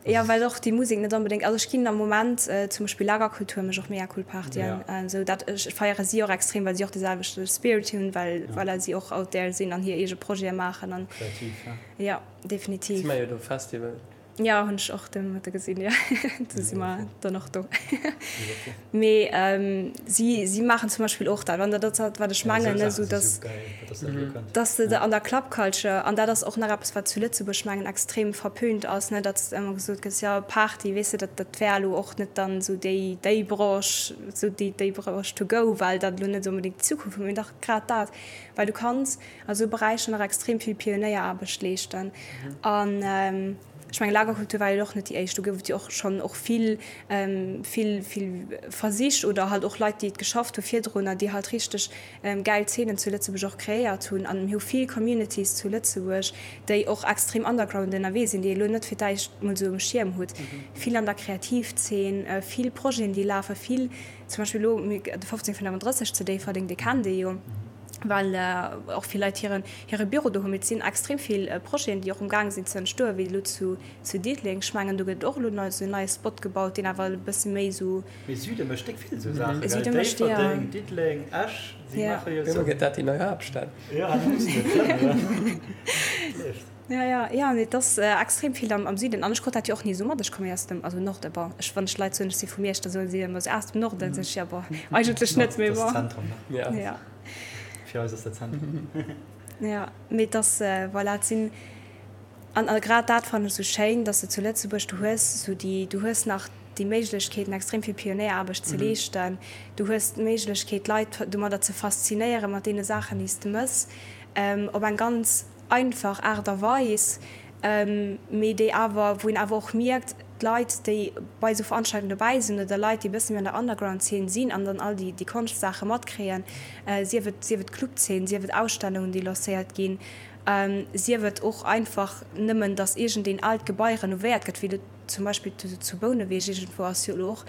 Jo, well och déi Musek net onbedéngt, also ech ginn am Moment zum Beispill Lagerkultur mécht och mega cool Partyen, esou dat ech feiere si och extrem, well si och de selwechte Spirit hunn, well voilà si och out there sinn an hir eege Projete maachen an Kreativ, ja. Jo, definitiv. Si maache jo do Festival. Jo, hunn ech och de Mëtte gesinn, jo, do si mer dann och do. Mee si si maachen zum Beispill och dat, an dat ass dat wat ech mengen, ne, esou dass dass de an der Club Culture, an dat ass och nach eppes wat zu Lëtzebuerg mengen extrem verpönt ass, ne, datt ëmmer gesot gëtt, jo Party, weess de, dat dat wär elo och net dann esou déi déi Branche, esou déi déi Branche to go, well dat elo net onbedéngt d'Zukunft huet, mee dach grad dat, well du kanns a sou Beräicher nach extrem vill Pionéieraarbecht leeschten an. Ech mengen, Lagerkultur war jo och net déi éischt. Do gouf et jo och schonn och vill, vill, vill Versich oder halt och Leit, déi et geschafft hu virdrunner, déi halt richteg gäil Zeenen zu Lëtzebuerg och kreéiert hunn. An mir hu vill Communities zu Lëtzebuerg, déi och extrem underground ënnerwee sinn, déi ee lo net fir d'éischt mol esou um Schierm hutt. Vill an der Kreativzeen, vill Projeten, déi lafen, vill zum Beispill elo de 1535 zu Déifferdeng, dee kennt ee jo. well och vill Leit hiren hire Büro do hunn. Mee et sinn extrem vill Projeten, déi och um gaang sinn ze entstoen, wéi elo zu zu Diddeleng. Ech mengen, do gëtt och elo nei esou en neie Spot gebaut, deen awer e bësse méi esou. Mee Süde mécht déck vill esou Saachen, gell? Déifferdeng, Diddeleng, Esch, si maache jo esou. Gëtt dat déi nei Haaptstad? Jo, da mussen se klëmmen. Leeft. Ja, ja, ja, nee, et ass extrem vill am, am Süden. An ech krut dat jo och ni esou mat. Ech komme jo aus dem, also Norden, bon, ech, wann ech Leit soen, ech si vu Miersch, da soe si ëmmer esou, ah, aus dem Norden? Sot ech, ja, bon, eigentlech net, mee bon. Dat ass Zentrum, ne? Ja. Ja. Fir eis ass dat Zentrum. Ja, mee et ass, voilà, et sinn, an, a grad dat fannen ech esou schéin, dass de zu Lëtzebuerg, du hues esou déi, du hues nach déi Méiglechkeeten, extrem vill Pionéieraarbecht ze leeschten. Du hues d'Méiglechkeet, d'Leit domadder ze faszinéieren, mat deene Saachen, déi s de mëss, op eng ganz einfach Aart a Weis, mee déi awer, wou een awer och mierkt, d'Leit, déi bei esou Veranstaltungen dobäi sinn oder Leit, déi e bësse méi an der Underground-Zeen sinn an dann all déi, déi Konschtsaache matkréien, sief et, sief et Clubzeen, sief et Ausstellungen, déi lancéiert ginn, sief et och einfach nëmmen, datt iergendeen aalt Gebai renovéiert gëtt, wéi elo zum Beispill zu Bouneweg iergendwou ass jo elo och,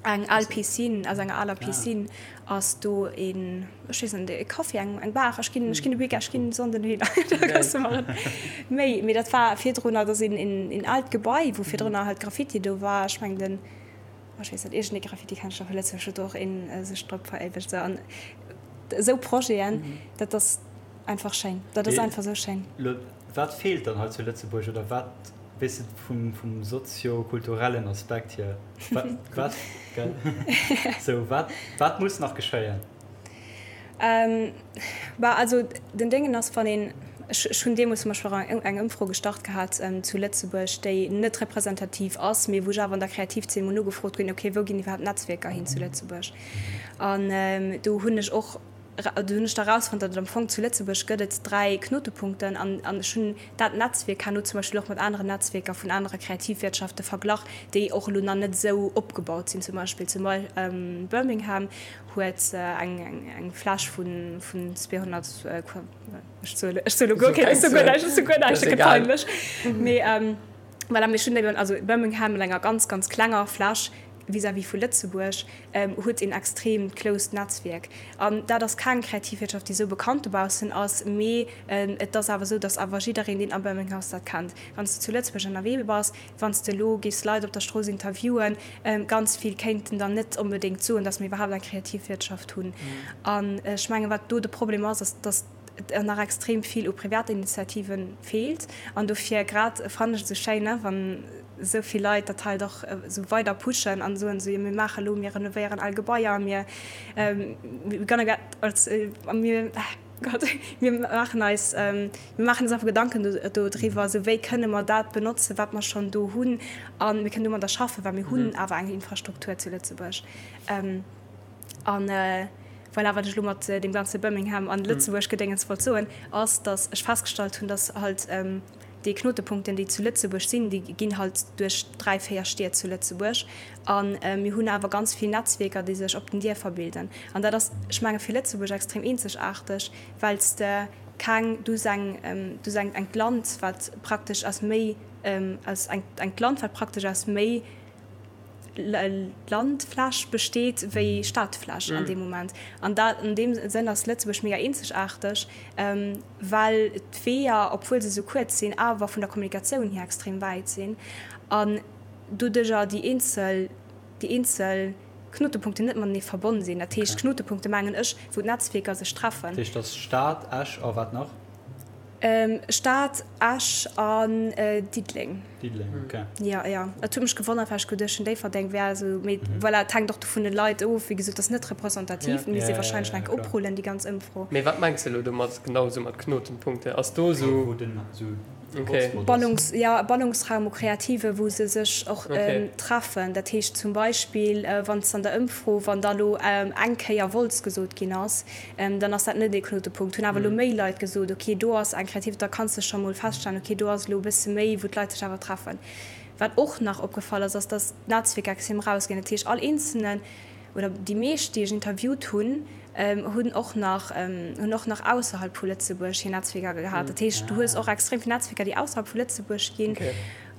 Eng al Piscine, aus enger aler Piscine ass do een, ech weess net, e Café, eng eng Bar. Ech ginn, ech ginn de Weekend, ech ginn Sonnden dohinner, da kanns de mer méi. Mee dat war virdrunner, dat ass een een aalt Gebai, wou virdrunner halt Graffiti do war. Ech mengen den, oh ech weess net, iergendee Graffiti-Kenschtler vu Lëtzebuerg huet do och een sech drop veréiwegt. Esou an esou Projeten, dat ass einfach schéin, dat ass einfach esou schéin. Lo, wat feelt dann hei zu Lëtzebuerg oder wat? Weess de, vum, vum sozio-kulturellen Aspekt hier, wat, wat, gell? Sou, wat, wat muss nach geschéien? Ähm, bah, also den Déngen ass, wann een, ech, ech hunn deemools zum Beispill och eng, eng Ëmfro gestart gehat zu Lëtzebuerg, déi net representativ ass, mee wou ech awer an der Kreativzeen mol nogefrot hunn, okay, wou ginn iwwerhaapt Netzwierker hin zu Lëtzebuerg? An do hunn ech och, Do hunn ech da erausfonnt, datt et am Fong zu Lëtzebuerg gëtt et 3 Knotepunkten an an ech hunn dat Netzwierk herno zum Beispill och mat aneren Netzwierker vun anere Kreativwirtschafte verglach, déi och elo nach net esou opgebaut sinn. Zum Beispill zu Birmingham huet eng eng Fläch vu vun 200 Qua, ech soe ech soe elo guer keng, ech soe guer näischt, ech soe guer näischt, dat gëtt peinlech. Mee voilà, mee ech hunn eben also Birmingham mat enger ganz ganz klenger Fläch. vis-à-vis vu Lëtzebuerg huet een extrem closed Netzwierk. An dat ass keng Kreativwirtschaft, déi esou bekannt dobaussen ass, mee et ass awer esou, datt awer jiddereen, deen a Birmingham ass, dat kennt. Wann s de zu Lëtzebuerg ënnerwee bass, wann s de elo géifs Leit op der Strooss interviewen, ganz vill kéinten der net onbedéngt soen, datt mir iwwerhaapt eng Kreativwirtschaft hunn. An ech mengen, wat do de Problem ass, ass, datt et nach extrem vill u Privatinitiative feelt. An dofir grad fannen ech et esou schéin, wann esou vill Leit dat halt och esou weider pushen an soen, esou, jo mir maache elo, mir renovéieren al Gebaier, mir, we're gonna get, mir, Gott, mir maachen eis, mir maachen eis einfach Gedanken do driwwer, esou wéi kënne mer dat benotzen, wat mer schonn do hunn a mir kënnen domadder schaffen, well mir hunn awer eng Infrastruktur zu Lëtzebuerg. An voilà, wat ech elo mat deem ganze Birmingham an Lëtzebuerg-Gedéngens wollt soen, ass, datt ech festgestallt hunn, datt halt déi Knotepunkten, déi zu Lëtzebuerg sinn, déi ginn halt duerch 3, 4 Stied zu Lëtzebuerg. A mir hunn awer ganz vill Netzwierker, déi sech op den Dierfer bilden. An dat ass, ech menge fir Lëtzebuerg extrem eenzegaarteg, well s de keng, du hues eng, du hues eng, engt Land, wat praktesch aus méi, aus eng, engt Land, wat praktesch aus méi Landfläch besteet wéi Stadfläch an deem Moment. An dat, an deem Sënn ass Lëtzebuerg mega eenzegaarteg, well d'Weeër, obwuel se esou kuerz sinn, awer vun der Kommunikatioun hier extrem wäit sinn an doduercher déi eenzel, déi eenzel Knotepunkten net matenee verbonn sinn. Dat heescht, Knotepunkte mengen ech, wou d'Netzwierker sech treffen. Dat heescht, dat ass Stad, Esch a wat nach? Stad, Esch an Diddeleng. Diddeleng, ok. Jo, jo. Et huet mech gewonnert, well ech geduecht hunn, Déifferdeng wär esou, mee voilà, et hänkt och do vun de Leit of. Wéi gesot, et ass net representativ, et misst ee warscheinlech nach eng Kéier oprullen, déi ganz Ëmfro. Mee wat mengs de elo domat, genau esou mat Knotenpunkte? Ass do esou. Wou den esou. Ballungs, jo, e Ballungsraum u Kreative wou se sech och treffen. Dat heescht zum Beispill, wann s an der Ëmfro, wann da lo eng Kéier Wolz gesot ginn ass, dann ass dat net ee Knotepunkt. Hunn awer elo méi Leit gesot, ok, do ass eng Kreativ, da kanns de scho mol feststellen, ok, do ass elo e bësse méi, wou d'Leit sech awer treffen. Wat och nach opgefall ass, ass, dass d'Netzwierker extrem erausginn. Dat heescht, all eenzelnen oder déi meescht, déi ech interviewt hunn, hunn och nach, hunn och nach ausserhalb vu Lëtzebuerg hir Netzwierker gehat. Dat heescht, du hues och extrem vill Netzwierker, déi ausserhalb vu Lëtzebuerg ginn.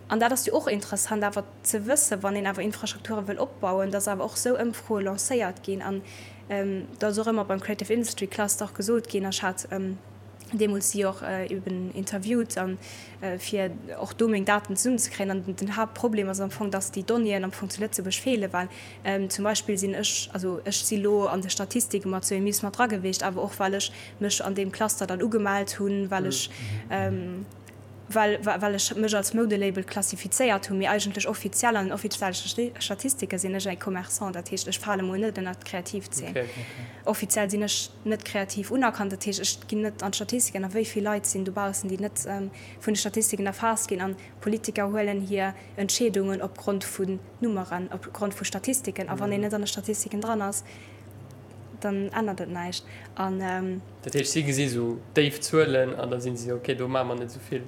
An dat ass jo och interessant awer ze wëssen, wann een awer Infrastrukture wëll opbauen, dass awer och esou Ëmfroe lancéiert ginn. An dat ass och ëmmer beim Creative Industry Cluster och gesot ginn. Ech hat deemools si och eben interviewt an fir och do meng Daten zesummenzekréien. An den Haaptproblem ass am Fong, dass déi Donnéeën am Fong zu Lëtzebuerg feelen, well zum Beispill sinn ech, also ech si lo an de Statistike mat zu EMIS mat dra gewiescht, awer och well ech mech an deem Cluster dann ugemellt hunn, well ech well well ech mech als Moudelabel klassifizéiert hunn, mee eigentlech offiziell an den offizielle Statistike sinn ech e Commerçant, dat heescht ech fale mol net ënnert d'Kreativzeen. Offiziell sinn ech net kreativ unerkannt, dat heescht ech ginn net an d'Statistiken. A wéi vill Leit sinn dobaussen, déi net vun de Statistiken erfaasst ginn? An Politiker huelen hir Entscheedungen opgrond vun Nummeren, opgrond vu Statistiken. A wann een net an de Statistiken dran ass, dann ännert et näischt. An. Dat heescht, si gesi sou déif Zuelen an da si si, ok, do maache mer net esou vill,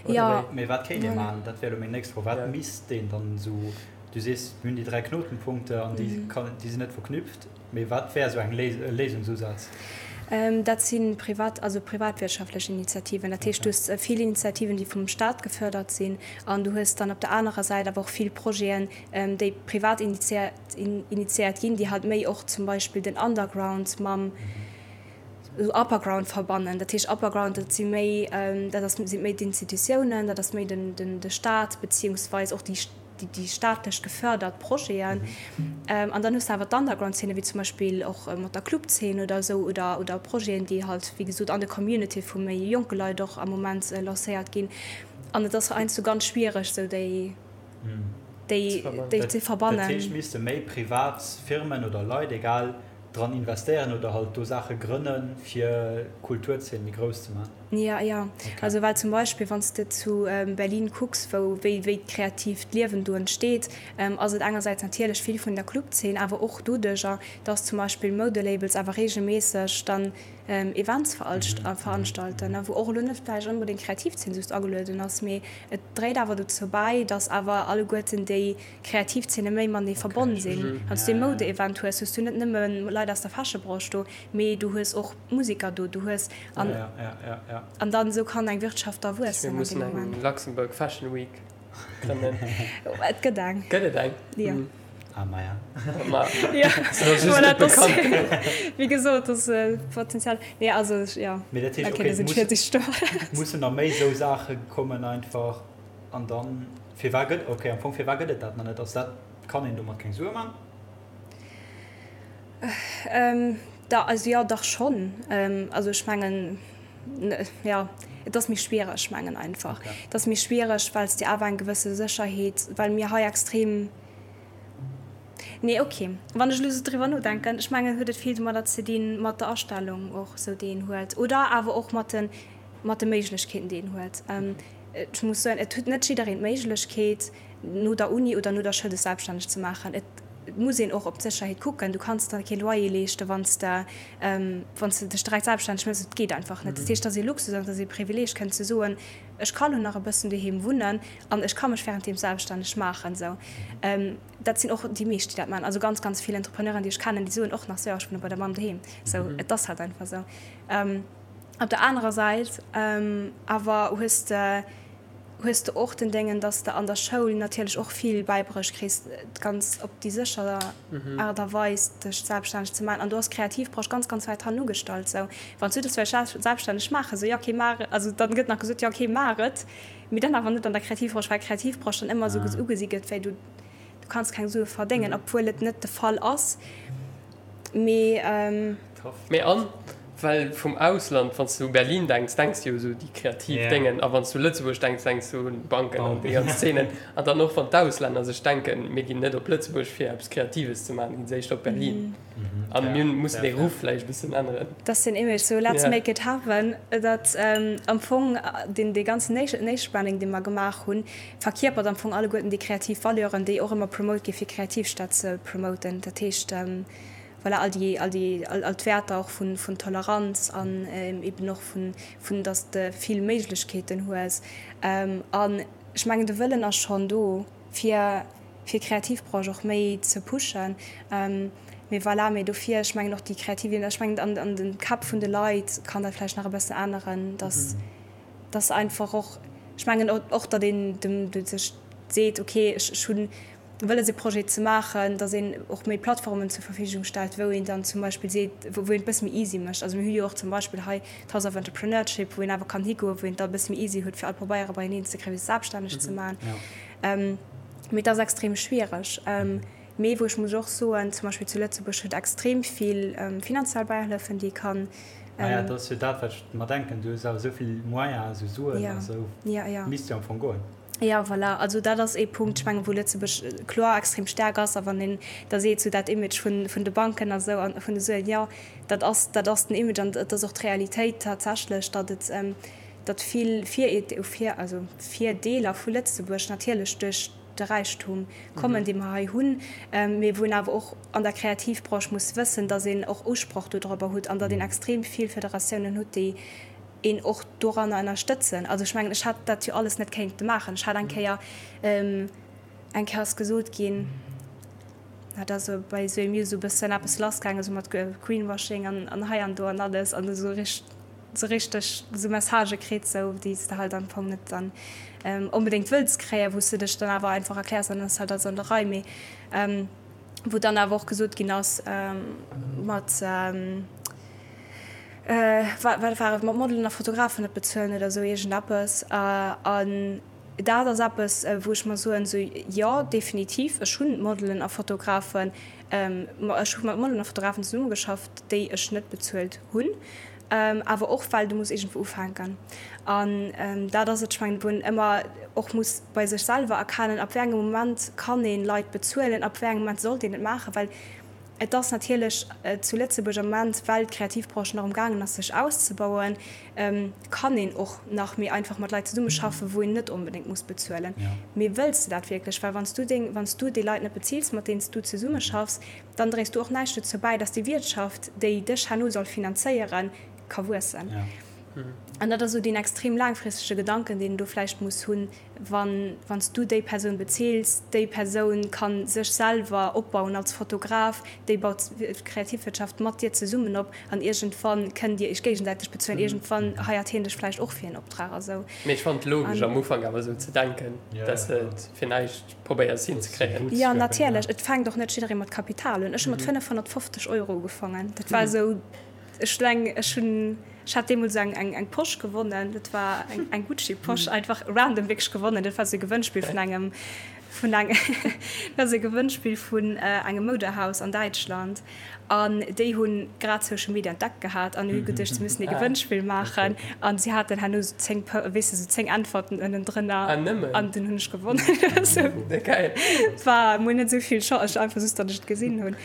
oder wéi? Mee wat kéint ee maachen? Dat wär elo meng nächst Fro. Wat misst een dann esou, du sees, mir hunn déi 3 Knotenpunkte an déi déi sinn net verknüpft, mee wat wär esou eng Léisungsusaz? Dat si privat, also privatwirtschaftlech Initiativen. Dat heescht, du hues vill Initiativen, déi vum Staat gefördert sinn an du hues dann op der anerer Säit awer och vill Projeten, déi privat initiéiert ginn, déi halt méi och zum Beispill den Underground mam Upperground verbannen. Dat heescht Upperground, dat si méi, dat ass, si méi d'Institutiounen, dat ass méi den, den, de Staat beziehungsweis och déi, déi staatlech gefördert Projeten. An dann hues de awer d'Underground-Szene, wéi zum Beispill och mat der Clubzeen oder esou oder, oder Projeten, déi halt, wéi gesot, an de Community vu méi jonke Leit och am Moment lancéiert ginn. An et ass heiansdo ganz schwiereg, esou déi. déi déi ze verbannen. Dat heescht, misste méi privat Firmen oder Leit, egal, dran investéieren oder halt do Saache grënnen, fir d'Kulturzeen méi grouss ze maachen? Jo, jo. Also well zum Beispill, wann s de zu Berlin kucks, wou wéi wéi d'kreatiivt Liewen do entsteet, ass et engersäits natierlech vill vun der Clubzeen, awer och doduercher, dass zum Beispill Moudelabels awer reegelméisseg dann Events veranstalten, wou och elo net vläicht onbedéngt d'Kreativzeen just agelueden ass, mee et dréit awer dozou bäi, datt awer alleguerten déi Kreativzeene méi matenee verbonn sinn. Wann s du ee Moude-Event hues, hues du net nëmme Leit aus der Fashion-Branche do, mee du hues och Museker do, du hues an an dann esou kann eng Wirtschaft da wuessen Mir mussen eng Luxembourg Fashion Week grënnen. Et gëtt eng. Gëtt et eng? Jo. Ah, maja. Ma, Ja, ass just voilà, net dat ass, bekannt genuch. wéi gesot, dat ass Potenzial. Nee, also, ja, Mee dat heescht, okay, okay, da sinn muss, 40 Storen. mussen nach méi esou Saache kommen einfach an dann, firwat gëtt, okay, am Fong, firwat gëtt et dat nach net? Ass dat, kann een domat keng Sue man? Da, also jo, dach schonn. Also ech mengen, jo, et ass méi schwiereg, mengen einfach. Et ass méi schwiereg, well s de awer eng gewësse Sécherheet, well mir hei extrem, nee, okay, wann ech elo esou driwwer nodenken, ech mengen, huet et vill domadder ze dinn, mat der Astellung och esou, déi een huet, oder awer och mat de, mat de Méiglechkeeten, déi een huet. Ech muss soen, et huet net jiddereen d'Méiglechkeet, no der Uni oder no der Schoul sech selbststänneg ze maachen. Et muss een och op d'Sécherheet kucken. Du kanns der kee Loyer leeschten, wann s de, wann s de dech direkt selbststänneg méchs. Et geet einfach net. Dat heescht, et ass ee Luxus an et ass ee Privileeg, kënnen ze soen, ech ka lo nach e bëssen doheem wunnen an ech ka mech wärenddeem selbststänneg maachen. Esou, dat sinn och déi meescht, déi dat maachen. Also ganz, ganz vill Entrepreneuren, déi ech kennen, déi soen och nach sou, jo, ech wunne bei der Mamm doheem. Esou, et ass halt einfach esou. Op der anerer Säit awer hues de, hues de och den Déngen, dass de an der Schoul natierlech och vill bäibruecht kriss, ganz op déi sécher Aart a Weis dech selbststänneg ze maachen. An do ass d'Kreativbranche ganz, ganz wäit hannen ugestallt. Sou, wann s du dech wëlls selbststänneg maachen, sou, jo okay, maach, also dann gëtt nach gesot, jo okay, maach et, mee dann awer net an der Kreativbranche, well d'Kreativbranche dann ëmmer esou ugesi gëtt wéi du, du kanns keng Sue verdéngen, obwuel et net de Fall ass. Mee. Mee an well vum Ausland, wann s du u Berlin denks, denks du jo esou déi kreativ Déngen, a wann s du u Lëtzebuerg denks, denks du un Banken an déi ganz Zeenen. An dann och wann d'Auslänner sech denken, mir ginn net op Lëtzebuerg fir eppes Kreatives ze maachen, ginn se éischter op Berlin. An mir mussen dee Ruff vläicht e bëssen änneren. Dat ass den Image, sou let's make it happen. Dat am Fong deen dee ganzen Nation Branding, dee mer gemaach hunn, verkierpert am Fong alleguerten déi kreativ Valeuren, déi och ëmmer promote gi fir Kreativstad ze promoten. Dat heescht, voilà, all déi, all déi, all, all d'Wäerter och vun, vun Toleranz an eben och vun, vun dass de vill Méiglechkeeten hues. An ech mengen, de Wëllen ass schonn do, fir, fir d'Kreativbranche och méi ze pushen. Mee voilà, mee dofir, ech mengen och déi kreativ, ech mengen an, an de Käpp vun de Leit kann dat vläicht nach e bëssen änneren, dass, dass einfach och, ech mengen och, datt een dem, sech seet, okay, ech, ech hunn, wëlles e Projet ze maachen, datt een och méi Plattformen zur Verfügung stellt, wou een dann zum Beispill seet, wou een et bësse méi easy mécht. Also mir hu jo och zum Beispill hei d'House of Entrepreneurship, wou een awer kann higoen, wou een et da e bësse méi easy huet, fir all Pabeiere beieneen ze kréien, fir sech selbststänneg ze maachen. Mee et ass extrem schwiereg. Mee wou ech muss och soen, zum Beispill zu Lëtzebuerg huet extrem vill finanziell Bäihëllefen, déi ee kann. Maja, dat ass jo dat, wat ech mer denken. Du hues awer esou vill Moyens, esou Suen a sou, misst jo am Fong goen. Jo, voilà. Also dat ass ee Punkt, ech mengen, wou Lëtzebuerg kloer extrem staark ass. A wann een da seet, sou dat Image vun, vun de Banken a sou a vun de Suen, jo, dat ass, dat ass den Image an et ass och d'Realitéit tatsächlech, datt et, datt vill Vir, also Virdeeler vu Lëtzebuerg natierlech duerch de Räichtum kommen, dee mer hei hunn, mee wou een awer och an der Kreativbranche muss wëssen, datt een och Usproch dodrobber hutt an datt een extrem vill Federatiounen hutt, déi een och doranner ënnerstëtzen. Also ech mengen, ech hätt dat jo alles net kéinte maachen. Ech hat eng Kéier, eng Kéier ass gesot ginn, dat ass esou bei esou EMU esou e bëssen eppes lassgaangen, esou mat Greenwashing an, an hei an do an alles an esou richt, esou richteg esou Messagë kritt, esou déi s de halt am Fong net dann onbedéngt wëlls kréien, wou s de dech dann awer einfach erkläers an dann ass halt alles an der Rei. Mee wou dann awer och gesot ginn ass mat, Wat war et, mat Modelen a Fotografen net bezuelen oder esou iergendeppes. An dat ass eppes, wou ech mer soen, esou, jo, definitiv, ech hunn Modelen a Fotografen, ech hu mat Modelen a Fotografen zesummegeschafft, déi ech net bezuelt hunn, awer och well du muss iergendwou ufänken. An dat ass et, ech mengen, wou een ëmmer och muss bei sech selwer erkennen, ab wéi engem Moment kann ee Leit bezuelen, ab wéi engem Moment sollt een et maachen, well Et ass natierlech zu Lëtzebuerg am Moment, well d'Kreativbranche nach um gaangen ass sech auszebauen, kann een och nach méi einfach mat Leit zesummeschaffen, wou een net onbedéngt muss bezuelen. Mee wëlls de dat wierklech? Well wann s du deng, wann s du déi Leit net bezills, mat deenen s du zesummeschaffs, dann dréis du och näischt dozou bäi, dass déi Wiertschaft, déi dech herno soll finanzéieren, ka wuessen. An dat ass esou deen extrem laangfristege Gedanken, deen een do vläicht muss hunn, wann wann s du déi Persoun bezeels, déi Persoun ka sech selwer opbauen als Fotograf, déi baut d'Kreativwirtschaft mat dir zesummen op an iergendwann kënnt dir iech géigesäiteg bezuelen, iergendwann heiert hien dech vläicht och fir en Optrag a sou. Mee ech fannen et logesch am Ufank awer esou ze denken, dass de et fir näischt probéiers hinzekréien. Jo, natierlech. Et fänkt och net jidderee mat Kapital un. Ech hu mat 550 Euro ugefangen. Dat war esou. Ech hunn eng, ech hunn, ech hat deemools eng, eng, eng Posch gewonnen. Dat war eng, eng Gucci-Posch, einfach random wierklech gewonnen. Dat war esou e Gewënnspill vun engem, vun eng, dat war esou e Gewënnspill vun engem Moudehaus an Däitschland. An déi hu grad Social Media entdeckt gehat an hu geduecht, se müssen ee Gewënnspill maachen. An si haten herno esou 10, weess de, esou 10 Äntwerten ënnendrënner. Ah, nëmmen? An dunn hunn ech gewonnen. Geil. War mol net esou vill Chance, ech einfach just, datt ech et gesinn hunn.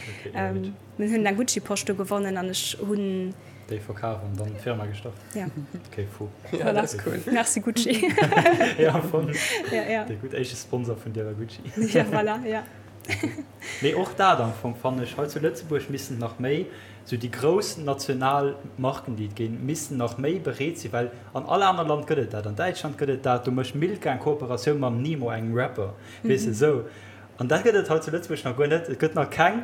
Mir hunn eng Gucci-Posch do gewonnen an ech hunn. Déi verkaf an dann d'Firma gestart? Ja. Okay, fou. Ja, dat ass cool. Merci Gucci. Ja, voll. Ja, ja. Dee gutt éischte Sponsor vun dir war Gucci. Ja, voilà, ja. Mee och dat am Fong fannen ech, hei zu Lëtzebuerg missten nach méi, sou déi grouss national Marken déi et ginn, missten nach méi bereet sinn, well an all aner Land gëtt et dat, an Däitschland gëtt et dat, do mécht Milka eng Kooperatioun mam Nemo, engem Rapper, weess de, sou. An dat gëtt et hei zu Lëtzebuerg nach guer net. Et gëtt nach keng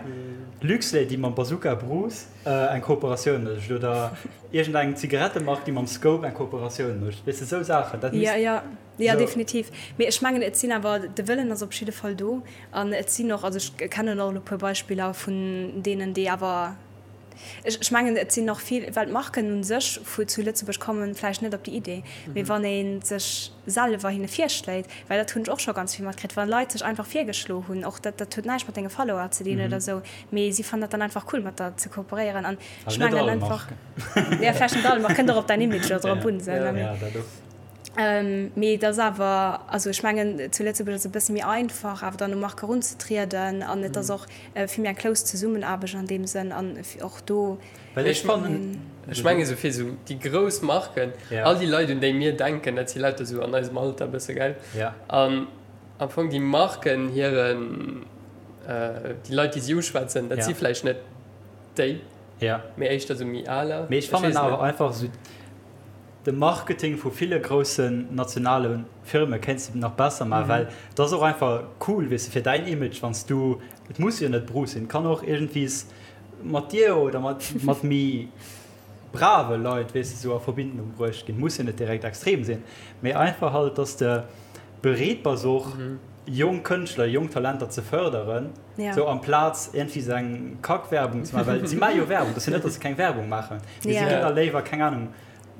Luxlait, déi mam Bazooka Bruce eng Kooperatioun mécht oder iergendeng Zigarettemark, déi mam Scope eng Kooperatioun mécht. Weess de, esou Saachen. Dat misst. Jo, jo, jo, definitiv. Mee ech mengen, et sinn awer, de Wëllen ass op jidde Fall do. An et sinn och, also ech kennen och elo e puer Beispiller vun deenen, déi awer, Ech mengen, et sinn och vill, well d'Marken u sech vu zu Lëtzebuerg kommen vläicht net op déi Idee, mee wann ee sech selwer hinne virschléit, well dat hunn ech och scho ganz vill matkritt, wa Leit sech einfach virgeschlo hunn, och dat, dat huet näischt mat denge Follower ze dinn oder esou, mee si fannen dat dann einfach cool mat der ze kooperéieren an ech mengen einfach, jo vläicht net all Mark, kënnt och op däin Image elo drop un, esou, ne. Mee et ass awer, also ech mengen, zu Lëtzebuerg ass et e bësse méi einfach awer dann u Marke erunzetrieden an et ass och vill méi eng close Zesummenaarbecht an deem Sënn an och do. Well ech fannen, ech mengen esou fir esou déi grouss Marken, all déi Leit un déi mir denken, dat si lauter esou an eisem Alter e bësse, gell? An am Fong déi Marken hiren, déi Leit déi si uschwätzen, dat si vläicht net déi, mee éischter esou méi aler. Mee ech fannen awer einfach esou, De Marketing vu ville groussen nationale Firme kéints de nach besser maachen, well et ass och einfach cool, weess de, fir däin Image, wann s du, et muss jo net Bruce sinn, et kann och iergendwies mat dir oder mat mat méi brave Leit, weess de, sou a Verbindung bruecht ginn. Muss jo net direkt extrem sinn, mee einfach halt, dass de bereet bass och jonk Kënschtler, jonk Talenter ze fërderen, sou amplaz iergendwéi sou eng Kackwerbung ze maachen, well si maache jo Werbung, et ass jo net, dass se keng Werbung maachen, mee si ginn da léiwer, keng Anung,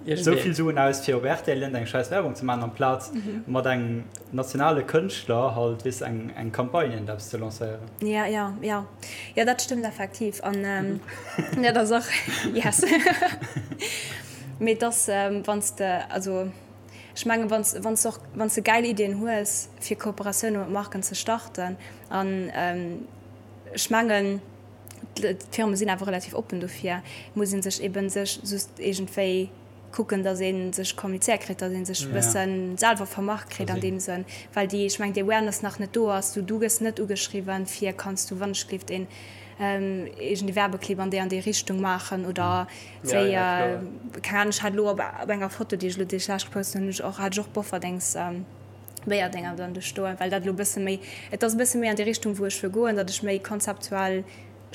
Esou vill Suen aus fir op rtl eng scheiss Werbung ze maachen amplaz mat engem nationale Kënschtler halt weess eng eng Campagne iergend eppes ze lancéieren. Ja ja ja ja dat stëmmt effektiv an dat ass och yes mee et ass wann s de also ech mengen wann s wann s och wann s de gäil Iddien hues fir Kooperatioune mat Marken ze starten an ech mengen D'Firme sinn awer relativ oppen dofir. Et muss ee sech eben sech just iergendwéi kucken, datt ee sech kommunizéiert kritt, datt ee sech e bësse selwer vermarkt kritt an deem Sënn, well déi, ech mengen, déi Awareness nach net do ass. Du, du gëss net ugeschriwwen, fir kanns du wannechgelift een iergendee Werbeclip an déi an déi Richtung maachen oder wéi, keng Ahnung, ech hat elo op enger Foto, déi ech elo déi ech lech gepost hunn, hunn ech och, hat ech och Bofferdings, Béierdenger dann do stoen, well dat elo e bësse méi, et ass e bësse méi an déi Richtung, wou ech wëll goen, datt ech méi konzeptuell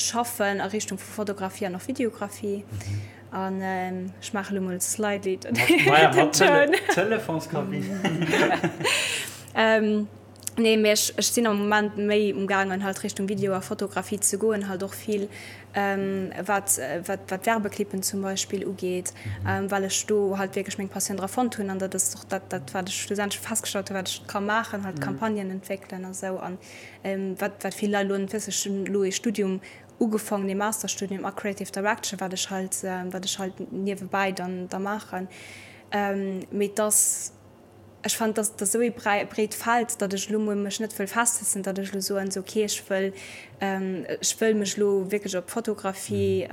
schaffen a Richtung vu Fotografie an och Videografie. An ech maache elo mol slightly den Toun. Telefonskabinn. Nee, mee ech, ech sinn am Moment méi umgaangen, halt Richtung Video a Fotografie ze goen, halt och vill wat wat Werbeclippen zum Beispill ugeet, well ech do halt wierklech meng Passioun dra fonnt hunn an dat ass och dat dat wat ech schlussendlech festgestallt hunn, wat ech ka maachen, halt Campagnen entwéckelen a sou an wat wat vill Leit elo net wëssen, ech hunn elo ee Studium ugefaangen, ee Masterstudium a Creative Direction, wat ech halt wat ech halt niewebäi dann da maachen, mee et ass. Ech fannen, dass dat esou ee breet Feld, datt ech elo mol mech net wëll festsetzen, datt ech elo soen, sou okay, ech wëll, ech wëll mech elo wierklech op Fotografie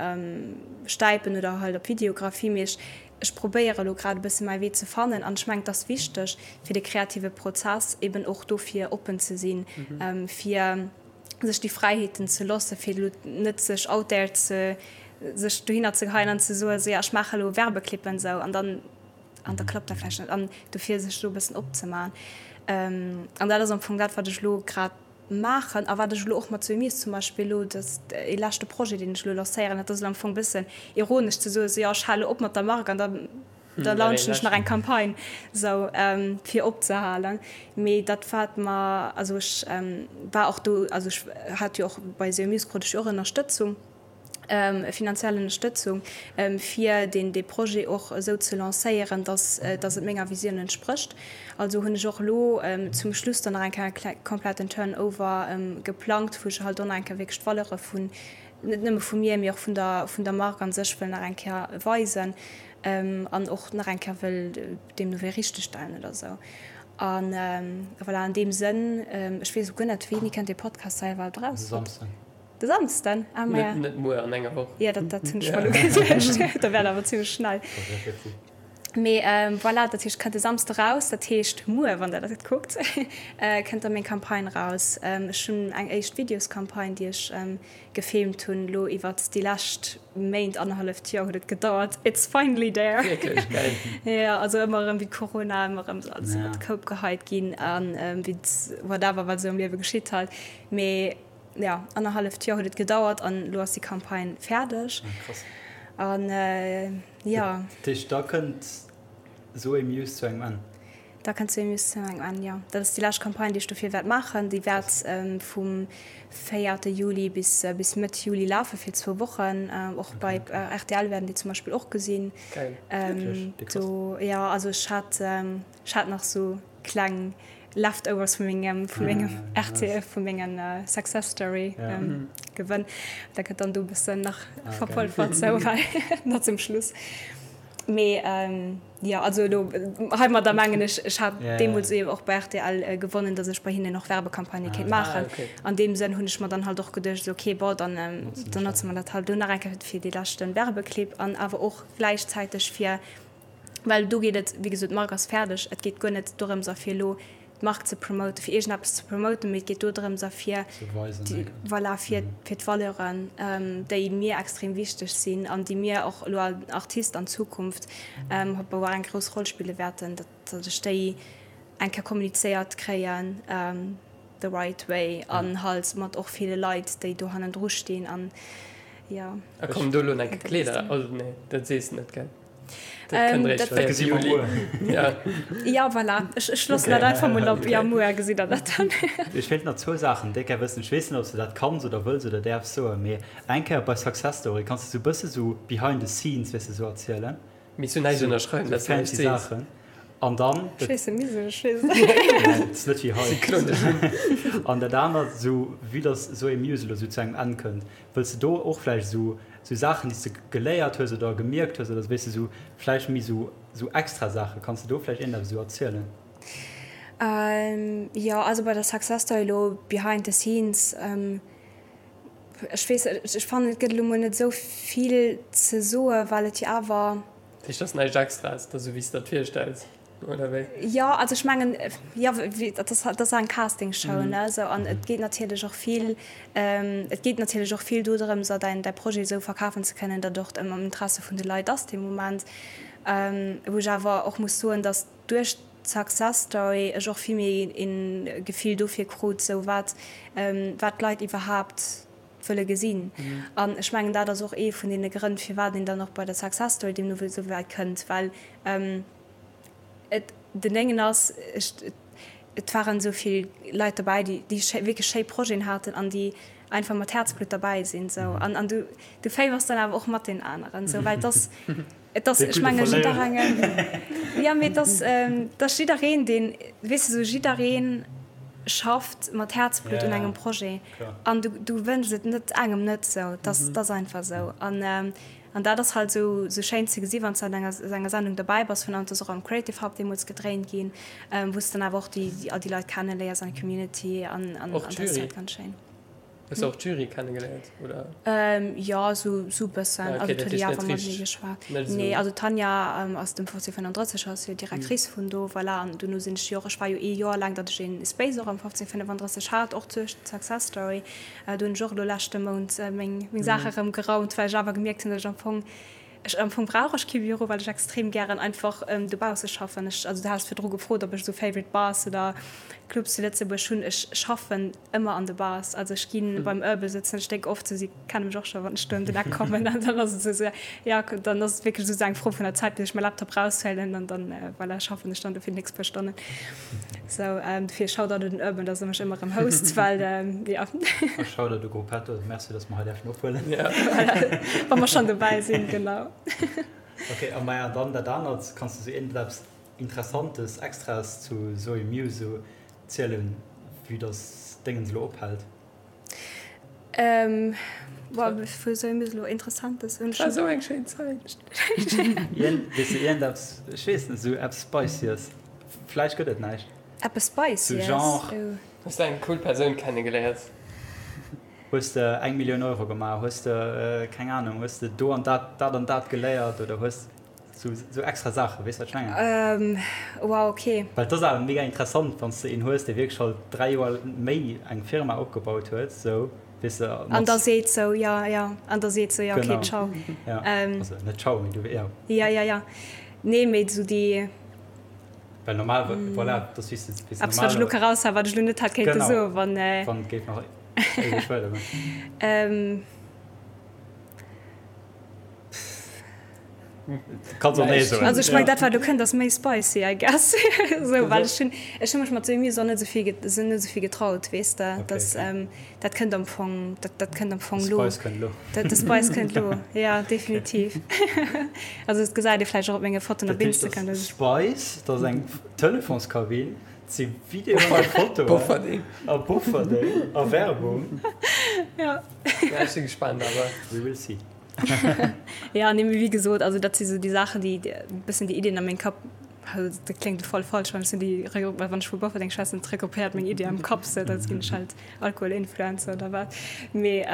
stäipen oder halt op Videografie, mee ech, ech probéiere elo grad e bësse mäi Wee ze fannen. An ech mengen, et ass wichteg fir de kreative Prozess eben och dofir oppen ze sinn, fir sech déi Fräiheeten ze loosse fir elo net sech out there ze, sech dohinner ze geheien an ze soen, sou ja, ech maache elo Werbeclippen, sou an dann. An da klappt dat vläicht net. An dofir sech do e bëssen opzemaachen. An dat ass am Fong dat, wat ech elo grad maachen a wat ech elo och mat Zoé Mies zum Beispill elo, dat ee leschte Projet, deen ech elo lancéieren, dat ass elo am Fong e bëssen ironesch ze soen, esou, jo, ech hale op mat der Mark an da da launchen ech nach eng Campagne, esou, fir opzehalen. Mee dat wat mer, also ech war och do, also ech hat jo och bei Zoé Mies krut ech jo och Ënnerstëtzung. finanziell Ënnerstëtzung, fir deen dee Projet och esou ze lancéieren, dass dass et menger Visioun entsprécht. Also hunn ech och elo zum Schluss dann nach eng Kéier e kompletten Turnover geplangt, wou ech halt och nach eng Kéier wierklech d'Valeure vun, net nëmme vu mir, mee och vun der vun der Mark a sech wëll nach eng Kéier weisen an och nach eng Kéier wëll deemno wéi richtegstellen oder esou. A voilà, an deem Sënn, ech weess elo guer net, wéini kënnt dee Podcast hei iwwerhaapt eraus? De Samsden. De Samsden? Ah, maja. Net muer, an enger Woch. Jo, dat, dat hunn ech mer elo geduecht. Da wär et awer zimmlech schnell. Mee voilà, dat heescht, kënnt de Samsde raus. Dat heescht, muer, wann der dat kuckt, kënnt da meng Campagne raus. Ech hunn eng éischt Videoscampagne, déi ech gefilmt hunn elo iwwert déi lescht Méint, annerhalleft Joer huet et gedauert. It's finally there! Wierklech? Geil. Jo, also ëmmer erëm wéi Corona, ëmmer erëm esou alles iwwert de Koup geheit ginn an wéi whatever, wat esou am Liewe geschitt halt. Mee Jo, annerhalleft Joer huet et gedauert an elo ass déi Campagne fäerdeg. Ah, krass. An jo. Dat heescht, da kënnt Zoé Muse zu engem Enn? Da kënnt Zoé Muse zu engem Enn, jo. Dat ass déi lescht Campagne, déi ech dofir wäert maachen. Déi wäert vum véierte Juli bis bis Mëtt Juli lafe fir zwou Wochen. Och bei rtl wäerten déi zum Beispill och gesinn. Geil. Wierklech? Déi krass. Do, jo, also ech hat ech hat nach sou kleng Leftovers vu mengem vu mengem RTL vu mengen Success Story gewënn. Da gëtt dann do bëssen nach verpolfert sou well nach zum Schluss. Mee jo also elo heimadder mengen ech, ech hat deemools eben och bei rtl gewonnen, datt ech bei hinnen och Werbecampagnë kéint maachen. An deem Sënn hunn ech mer dann halt och geduecht, esou okay bon dann dann notze mer dat halt elo nach eng Kéier fir dee leschte Werbeclip an awer och gläichzäiteg fir Well do geet et, wéi gesot, d'Mark ass fäerdeg, et geet guer net dorëms a fir elo d'Mark ze promoten, fir iergendeppes ze promoten, mee et geet do drëms a fir, voilà, fir d'Valeuren, déi mir extrem wichteg sinn an déi mir och elo als Artist an Zukunft hope eng grouss Roll spille wäerten, datt ech déi eng Kéier kommunizéiert kréien the right way an halt mat och ville Leit, déi do hannendru stinn an jo. A kommen do elo nach Kleeder? Oh nee, dat sees de net, gell? Dat gesi mer muer. Ja, voilà. Ech loossen dat einfach mol op. Ja, muer gesitt der dat dann. Ech wéilt nach zwou Saachen déck gär wëssen. Ech weess net, ob s de dat kanns oder wëlls oder däerfs soen, mee eng Kéier bei Success Story, kanns de sou bësse sou behind the scenes, weess de, sou erzielen? Misst du näischt ënnerschreiwen, dat s du näischt sees. Sou fancy Saachen. An dann. Ech weess net, misst ech, ech weess et net. Et ass net wéi hei. An dat anert, sou vue dass esou ee Musical elo sou zu engem Enn kënnt, Wëlls de do och vläicht esou esou Saachen, déi s de geléiert hues oder gemierkt hues oder weess de esou vläicht méi esou esou extra Saachen, kanns de do vläicht iergendeppes esou erzielen? Jo, also bei der Success Story elo behind the scenes, ech weess, ech fannen et gëtt elo mol net esou vill ze soe well et jo awer. Dat heescht, et ass näischt Extraes, et ass esou wéi s de der et virstells? Oder wéi? Jo, also ech mengen, jo, dat ass, dat ass eng Castingshow, ne, esou, an et geet natierlech och vill, et geet natierlech och vill dodrëms, däin, däi Projet esou verkafen ze kënnen, datt och am Interesse vun de Leit ass dee Moment. Wou ech awer och muss soen, datt duerch d'Success Story ech och vill méi e Gefill dofir krut, esou wat, wat d'Leit iwwerhaapt wëlle gesinn. An ech mengen, dat ass och ee vun deene Grënn, firwat een dann och bei der Success Story deemno wéi esou wäit kënnt, well et den Déngen ass, ech, et waren esou vill Leit derbäi, déi, déi schéi, wierklech schéi Projeten haten an déi einfach mat Häerzblutt derbäi sinn esou. An, an du, du féiwers dann awer och mat deenen aneren esou, well et ass, et ass, ech menge jidderengem, jo, mee et ass, et ass jiddereen, deen, weess de, esou jiddereen schafft mat Häerzblutt un engem Projet an du, du wënschs et net engem net esou, et ass, et ass einfach esou. An, An dat ass halt esou schéin ze gesi wann s de an enger enger Sendung derbäi bass, vun an ass och am Creative Hub deemools gedréint ginn, wou s de dann awer och déi all déi Leit kenneléiers an d'Community an an Och dat ass d'Jury? halt ganz schéin. Hues de och d'Jury kennegeléiert oder? Jo, esou esou bëssen. Ah, Also okay, dat d'huet jo heescht awer net mat mir richteg, geschwat. net esou. Nee, also d'Tanja ass dem 1535 ass jo Directrice vun do, voilà. An dono sinn ech jo och, ech war jo ee Joer laang, datt ech een Space och am 1535 hat, och duerch d'Success Story. Do hunn ech och elo leschte Mount meng Saache rëm geraumt, well ech awer gemierkt hunn, datt ech am Fong. Ech, am Fong brauch ech kee Büro, well ech extrem gären einfach dobausse schaffen. Ech, also du has virdru gefrot, ob ech esou favorite Bars oder Clubs zu Lëtzebuerg hunn. Ech schaffen ëmmer an de Bars. Also ech gi beim Urban sëtzen, ech dénk oft esou, si kenne mech och scho wann ech do ëm den Eck kommen an dann ass et esou, jo, dann ass et wierklech esou eng Fro vun der Zäit, bis ech mäi Laptop raushuelen an dann, voilà, schaffen ech dann do fir déi nächst puer Stonnen. Sou, dofir Shoutout un den Urban, dass e mech ëmmer erëm host, well, jo. A Shoutout u Gruppetto, merci, dass mer hei däerfen ophuelen. Voilà, wa mer schonn dobäi sinn, genau. Ok, a maja, dann dat anert, kanns de sou iergendeppes Interessantes, Extraes zu Zoe Muse sou zielen, vue dass Déngens elo ophält? Ähm, boah, wou soll mir elo Interessantes hunn? War esou eng schéin Zäit. Weess de iergendeppes, ech weess net, esou eppes Spicyes? Vläicht gëtt et näischt. Eppes Spicyes? Sou Genre. Hues de eng cool Persoun kennegeléiert? Hues de eng Millioun Euro gemaach? Hues de, keng Ahnung, hues de do an dat, dat an dat geléiert oder hues. Sou, sou extra Saachen, weess wat ech mengen? Ähm, wow, okay. Well et ass awer mega interessant, wann s de een hues, dee wierklech halt 3 Joer méi eng Firma opgebaut huet, sou, weess de, mat. An da seet sou, ja, ja, an da seet sou, ja, okay, Genau. ciao. Ja, Ähm. also net ciao, mee du, ja. Ja, ja, ja. Nee, mee sou déi. Well normal, voilà, dat ass wéi s de, wéi s de Eppes, wat ech elo normal. ka raushauen, wat ech elo net hätt kéinte Genau. soen, wann. Wann et géif nach éiweg weidergoen. Ähm. Kanns och nee soen. Also ech meng dat wat elo kënnt ass méi spicy I guess. Sou well ech hunn ech hu mech mat Sous och net esou vill sou net esou vill getraut weess de. Okay, Dass okay. dat kënnt am Fong dat dat kënnt am Fong De lo. Spice kënnt lo. De de Spice kënnt lo, ja definitiv. Also et gesäit ee vläicht och op menge Fotoen Dat op heescht, Instagram, dass dass ech. Spice, dat ass eng Telefonskabinn, et si Videoen a Fotoen. Bofferding. A Bofferding a Werbung. Ja. Ja ech si gespaant awer. We will see. Ja, nee, mee wéi gesot, also dat si sou déi Saachen, déi e bëssen déi Iddien a mengem Kapp, also dat kléngt voll falsch, wann ech soen, déi regru-, wann ech vu Bofferdeng schwätzen, et regroupéiert meng Iddi am Kapp, sou dat ginn ech halt Alkoholinfluencer oder wat. Mee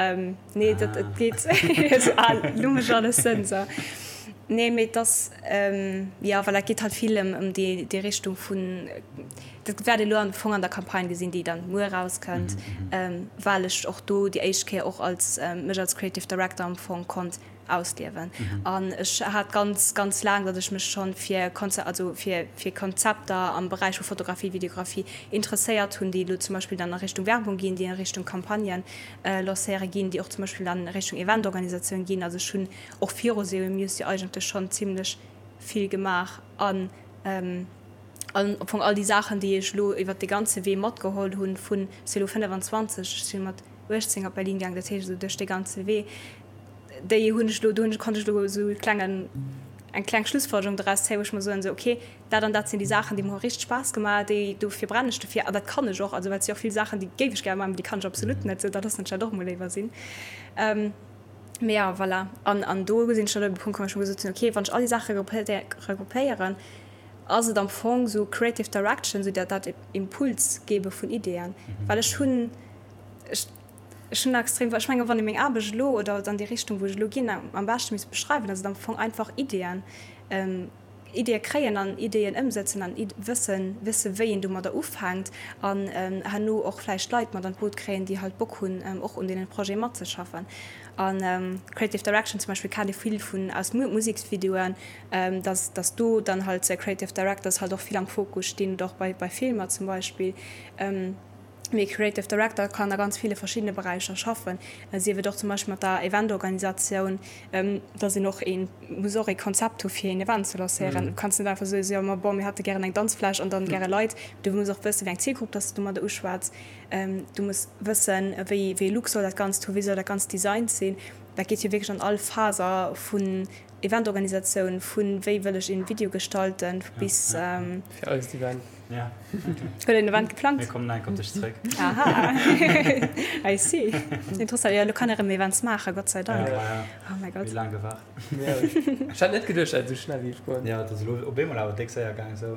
nee, dat et geet esou, ah, lo mécht alles Sënn, sou. Nee, mee et ass, jo, voilà, et geet halt vill ëm ëm déi déi Richtung vun, Dat wäert ee lo am Fong an der Campagne gesinn, déi dann muer erauskënnt, well ech och do déi éischt Kéier och als mech als Creative Director am Fong konnt ausliewen. An ech hat ganz, ganz laang, datt ech mech schonn fir Konze also fir fir Konzepter am Beräich vu Fotografie, Videografie interesséiert hunn, déi elo zum Beispill dann a Richtung Werbung ginn, déi a Richtung Campagnen lancéiere ginn, déi och zum Beispill dann a Richtung Eventorganisatioun ginn. Also ech hunn och viru SEO Muse jo eigentlech schonn zimlech vill gemaach an An am Fong all déi Saachen, déi ech elo iwwert dee ganze Wee matgeholl hunn, vun, ech si elo 25, ech si mat 18 op Berlin gaang, dat heescht esou duerch dee ganze Wee, déi hunn ech elo, do hunn ech, konnt ech elo esou e klengen, eng kleng Schlussfolgerung doraus zéien, wou ech mer soen, esou okay, dat an dat sinn déi Saachen, déi mer hu richteg Spaass gemaach, déi, dofir brennen ech dofir an dat kann ech och. Also well et si och vill Saachen, déi géif ech gäre maachen, mee déi kann ech absolut net, esou da loossen ech dat och emol léiwer sinn. Mee jo, voilà. An, an do sinn ech dann op e Punkt komm, wou ech mer gesot hunn, okay, wann ech all déi Saache regroupéieren, ass et am Fong sou Creative Direction, sou dat dat Impuls gebe vun Ideeën, well ech hunn, ech ech hunn extrem, ech menge wann ee meng Aarbecht elo oder an déi Richtung wou ech elo ginn am beschte misst beschreiwen, ass et am Fong einfach Ideeën, Ideeë kréien an Ideeën ëmsëtzen an wëssen, wësse wéi een domadder ufänkt an herno och vläicht Leit mat an d'Boot kréien, déi halt Bock hunn och un deenen Projete matzeschaffen. An Creative Direction zum Beispill kennt ee vill vun aus Museksvideoen, dass dass do dann halt Creative Directors halt och vill am Fokus stinn oder och bei bei Filmer zum Beispill. Mee e Creative Director kann a ganz ville verschiddene Beräicher schaffen, sief et och zum Beispill mat der Eventorganisatioun, dass een och ee muss och ee Konzept hu fir een Event ze lancéieren. Du kanns net einfach soen, jo ma bon mir hätte gären eng Danzfläch an dann gäre Leit. Du muss och wëssen, wéi eng Zielgrupp dass de domadder uschwätz. Du muss wëssen, wéi wéi ee Look soll dat Ganzt hu, wéi soll dat Ganzt designt sinn. Dat geet jo wierklech an all Faser vun Eventorganisatioun, vun wéi wëll ech een Video gestalten bis. Fir eist Event. Ja. Huet een Event geplangt? Mir kommen enk op dech zréck. Aha, I see. Interessant. Jo, elo kann ee rëm Events maachen, Gott sei Dank. Ja, ja. Oh mäi Gott. Wéi laang gewaart. Ech hat net geduecht, dat et esou schnell géif goen. Ja, et ass elo op eemol awer déck séier gaang esou.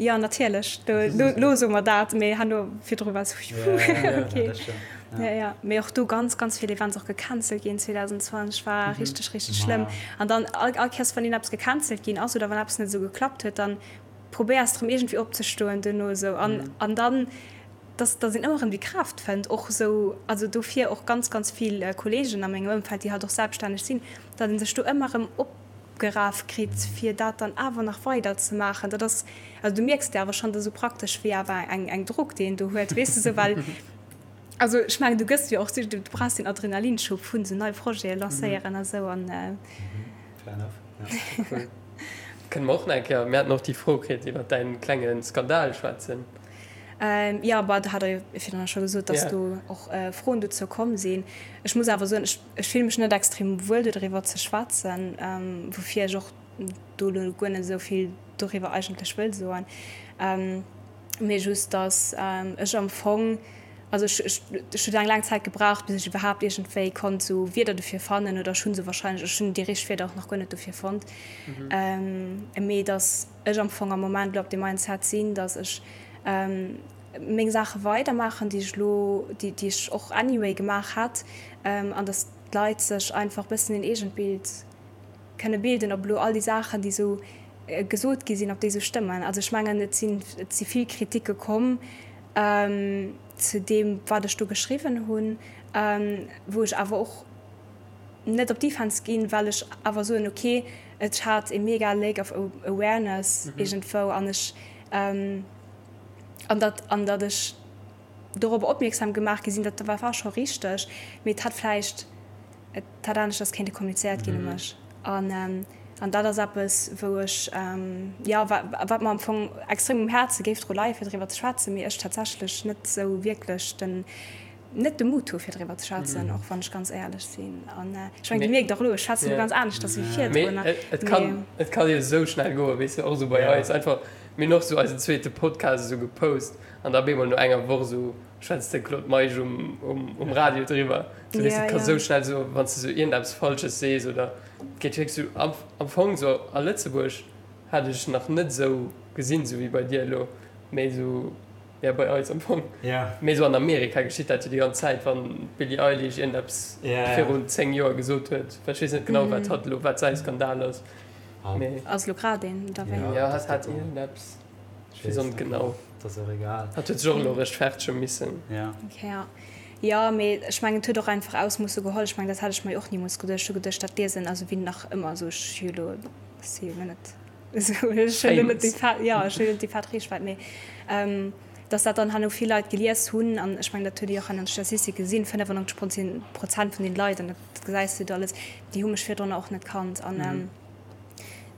Jo, natierlech. Do, lo soe mer dat, mee herno virdru war esou, Ja, ja, ja, okay. dat stëmmt. Ja, ja. Mee och do ganz, ganz vill Events och gecancelt ginn 2020 war richteg, richteg schlëmm. An dann all, all Kéiers, wann een eppes gecancelt ginn ass oder wann eppes net esou geklappt huet, dann probéiers erëm iergendwéi opzestoen duerno esou. An, an dann, dass, dass een ëmmer erëm déi Kraaft fënnt och esou, also dofir och ganz, ganz vill Kolleegen a mengem Ëmfeld, déi halt och selbststänneg sinn, datt ee sech do ëmmer erëm op. opgeraf kritt, fir dat dann awer nach weider ze maachen. Dat ass, also du mierks de awer schonn, dat ass esou praktesch wéi awer eng, eng Drog, déi een do huet, weess de, esou, well, also ech mengen, du gëss jo och, du brauchs den Adrenalinschub vun esou nei Projete lancéieren a sou an. Fair enough, ja. Cool. Kënne mer och nach eng Kéier, mir haten och déi Fro kritt, iwwer däin klenge Skandal schwätzen. Jo, bah, do hat Der jo virdrun scho gesot, dass do och Froen dozou komm sinn. Ech muss awer soen, ech, ech fille mech net extrem wuel dodriwwer ze schwätzen, woufir ech och do elo guer net esou vill doriwwer eigentlech wëll soen, mee just, dass ech am Fong, also ech, ech, ech huet eng laang Zäit gebraucht, bis ech iwwerhaapt iergendwéi konnt esou Wierder dofir fannen, oder ech hu se wahrscheinlech, ech hunn déi richteg Wierder och nach guer net dofir fonnt, mee dass ech am Fong am Moment elo op deem Mindset sinn, dass ech meng Saache weidermaachen, déi ech elo, déi ech och anyway gemaach hätt, an dass d'Leit sech einfach bëssen een eegent Bild kënne bilden, ob elo all déi Saachen, déi esou gesot gi sinn, ob déi esou stëmmen. Also ech mengen, et sinn, et si vill Kritike komm zu deem, wat ech do geschriwwen hunn, wou ech awer och net op Defense ginn, well ech awer soen, ok, et hat e mega Lack of awareness iergendwou an ech, an datt, an datt ech dorobber opmierksam gemaach gi sinn, dat war war scho richteg, mee et hätt vläicht, et hätt aneschters kéinte kommunizéiert ginn u mech. An, an dat ass eppes, wou ech, jo, wat mer am Fong extrem um Häerze géif dru leie fir driwwer ze schwätzen, mee ech tatsächlech net esou wierklech den, net de Mut hu fir driwwer ze schwätzen, och wann ech ganz éierlech sinn. An ech mengen, Dir mierkt och elo, ech schwätzen elo ganz aneschters wéi virdrun. Mee et kann, et kann jo esou schnell goen, weess de, och esou bei eis einfach, mir hunn och esou eisen zweete Podcast esou gepost an da op eemol no enger Woch esou schwätzt de Claude Meisch um, um Radio driwwer. Esou, weess de, et ka esou schnell esou, wann s de esou iergendeppes Falsches sees oder et geet wierklech esou am, am Fong esou a Lëtzebuerg hat ech nach net esou gesinn, esou wéi bei dir elo, mee esou. Ja, bei eis am Fong. Ja. Mee esou an Amerika geschitt dat jo déi ganz Zäit, wann d'Billie Eilish iergendeppes virun 10 Joer gesot huet. Well ech weess net genau, wat hatt elo, wat säi Skandal ass. Mee. Ass elo grad een, oder wéi? Ja, hatt hat iergendeppes. Ech weess och net genau. Dat ass och egal. Hatt huet sech och elo rechtfertege missen. Ja. Okay, ja. Jo, mee ech mengen, et huet och einfach Ausmoosse geholl. Ech mengen, dat hätt ech mer jo och nimools geduecht. Ech hu geduecht, dat liesen, also wéi nach ëmmer, esou ech hu jo elo, ech si jo elo net. Jo, ech hunn net déi fett Reechwäit, mee datt dat dann herno vill Leit gelies hunn, an ech mengen, dat huet ee jo och an den Statistike gesinn, 95 Prozent vun den Leit, an dat gesäis du do alles, déi hu mech virdrunner och net kannt. An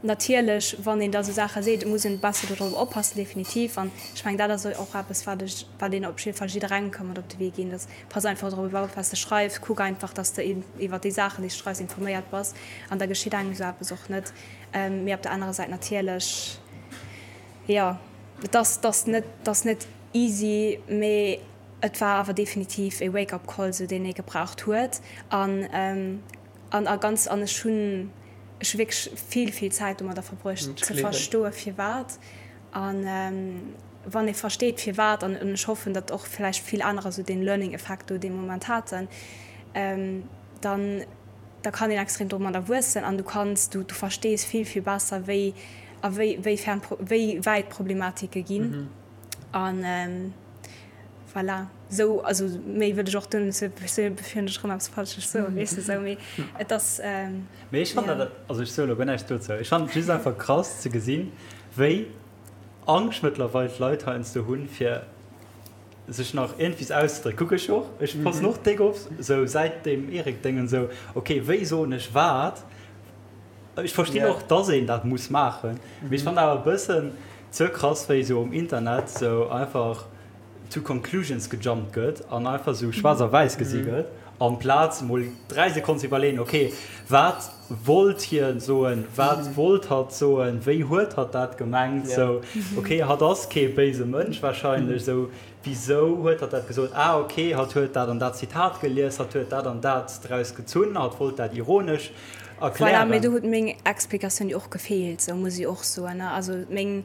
natierlech, wann een da sou Saache seet, muss een e besse dodrop oppassen, definitiv. An ech mengen, dat ass och eppes, wat ech, wat een op jidde Fall jidderengem ka mat op de Wee ginn, datt pass einfach drop op, wat s de schreifs, kuck einfach, datt s de iwwer déi Saachen, déi s de schreifs, informéiert bass, an da geschitt engem esou eppes och net. Mee op der anerer Säit natierlech, jo, et ass, et ass net, et ass net easy, mee et war awer definitiv e Wake-up Call, esou deen ee gebraucht huet. An, an a ganz, an ech hunn, ech hu wierklech vill, vill Zäit domadder verbruecht ze verstoe firwat. An wann ee versteet firwat, an ech hoffen, datt och vläicht vill anerer esou dee Learning Effekt do dee Moment haten, dann, da kann een extrem domadder wuessen an du kanns, du, du verstees vill, vill besser, wéi a wéi, wéi fern, wéi wäit d'Problematike ginn. An voilà, esou, also méi wëll ech och do net soen, bevir ech erëm eppes Falsches soen, weess de, esou, mee et ass, Mee ech fannen dat, also ech soe lo guer näischt dozou, ech fannen et just einfach krass ze gesinn, wéi Angscht mëttlerweil d'Leit heiansdo hunn, fir sech nach iergendwies auszedrécken. Kuck ech och, ech passen och déck op, sou säit deem Eric-Déngen, sou ok, wéi soen ech wat? Ech verstinn och, dass een dat muss maachen, mee ech fannen awer e bëssen ze krass, wéi sou um Internet sou einfach to conclusions gejumpt gëtt an einfach sou schwaarz a wäiss gesi gëtt, amplaz mol 3 Sekonnen ze iwwerleeën, ok, wat wollt hien soen, wat wollt hatt soen, wéi huet hatt dat gemengt, sou, ok, hatt ass kee béise Mënsch wahrscheinlech, sou, wisou huet hatt dat gesot, ah ok, hatt huet dat an dat Zitat gelies, hatt huet dat an dat draus gezunn, hatt wollt dat ironesch Voilà, mee do huet meng Explikatioun jo och gefeelt, sou muss ech och soen, ne, also meng,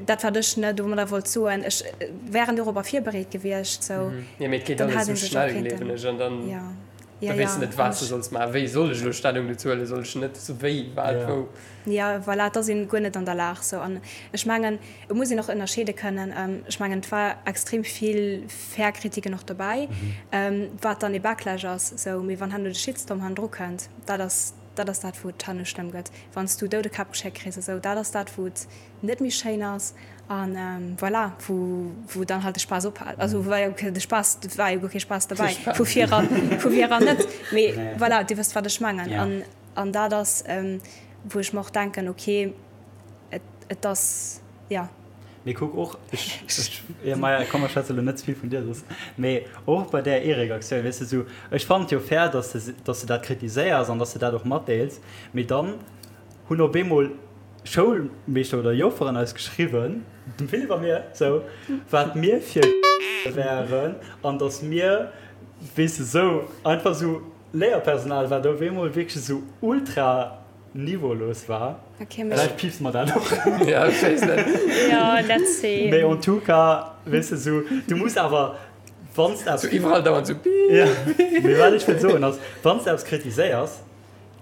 dat wat ech, ne, domadder wollt soen, ech wären dorobber virbereet gewiescht, sou, Jo, mee et geet dann alles hätt sou ee sech och schnell, kéinten, gleewen ech, an dann. jo. Da weess de net, wat s de solls maachen. Wéi soll ech elo Stellung dozou huelen? Soll ech net? Sou wéi, wat, wou? Jo, voilà, et ass een guer net an der Lag. Sou, an ech mengen, et muss een och ënnerscheede kënnen. Ech mengen, et war extrem vill fair Kritiken och dobäi, wat dann ee Backlash ass. Sou, mee wann herno de Shitstorm hannendru kënnt, dat ass. dat ass dat, wou et herno schlëmm gëtt. Wann s du Doudekäpp geschéckt kriss a sou, dat ass dat, wou et net méi schéin ass an voilà, wou, wou dann halt de Spaass ophält. Also war jo de Spaass, et war jo guer kee Spaass derbäi, vu vir eran, vu vir eran net. Mee voilà, Dir wësst, wat ech mengen. An, an dat ass, wou ech mer och denken, okay, et, et ass, jo. Mee kuck och, ech, ech, jo, maja, komm, ech schwätze lo net ze vill vun dir soss, mee och bei där Eric-Aktioun, weess de, sou, ech fannen et jo fair, dass de, dass de dat kritiséiers an dass de dat och matdeels, mee dann hunn op eemol Schoulmeeschter oder Jofferen eis geschriwwen, dem Philippe a mir, sou, wat mir fir wären an dass mir, weess de, sou einfach sou Léierpersonal, wat op eemol wierklech sou ultra niveaulos war. Okay, mee. Vläicht piipse mer dat och. Ja, ech weess net. Ja, let's see. Mee en tout cas, weess de, sou, du muss awer, wann s de eppes. Sou iwwerall dauernd sou piip. Ja, mee wat ech wëll soen ass, wann s de eppes kritiséiers,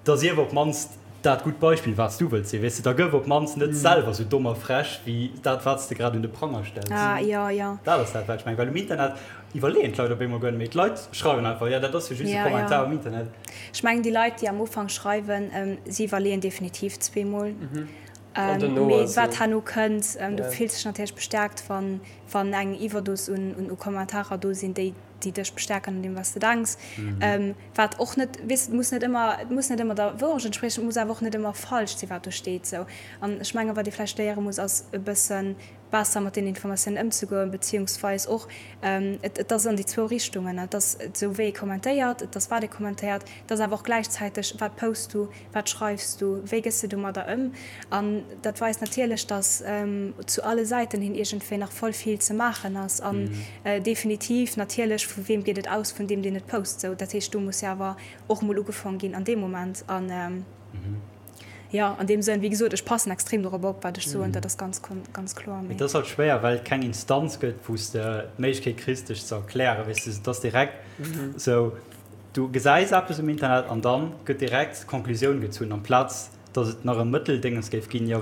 da sief op d'mannst dat gutt Beispill, wat s du wëlls sinn, weess de, da gëff op d'mannst net selwer sou domm a frech wéi dat, wat s de grad un de Pranger stells. Ah, jo, jo. Dat ass dat, wat ech mengen, well um Internet iwwerleeën d'Leit op eemol guer net méi. D'Leit schreiwen einfach, jo, dat ass jo just e Kommentar um Internet. Ech mengen, déi Leit, déi am Ufank schreiwen, si iwwerleeën definitiv zweemol. Mee wat herno kënnt, du fills dech natierlech bestärkt, wann, wann eng Iwwerdos un, un Kommentarer do sinn, déi, déi dech bestärken an deem, wat s de denks. Wat och net, weess, et muss net ëmmer, et muss net ëmmer der Wourecht entspriechen, et muss awer och net ëmmer falsch sinn, wat do steet. Sou. An ech mengen, wat ee vläicht léiere muss, ass e bësse besser mat deenen Informatiounen ëmzegoen, beziehungsweis och, et, et ass an déi zwou Richtungen, et ass esou wéi ee kommentéiert, et ass wat ee kommentéiert, et ass awer och gläichzäiteg, wat posts du, wat schreifs du, wéi gëss de domadder ëm. An dat weist natierlech, datt zu alle Säiten hin iergendwéi nach voll vill ze maachen ass. An definitiv natierlech, vu weem geet et aus? Vun deem, deen et post. Sou, dat heescht, do muss jo awer och emol ugefaang ginn an deem Moment. An jo, an deem Sënn, wéi gesot, ech passen extrem dorop op, wat ech soen, dat ass ganz, ganz kloer. Mee et ass halt schwéier, well et keng Instanz gëtt, wou s de d'Méiglechkeet kriss, dech ze erklären. Weess de, et ass direkt sou, Du gesäis eppes um Internet an dann gëtt direkt d'Conclusioun gezunn, amplaz datt et nach e Mëtteldéngens géif ginn, jo,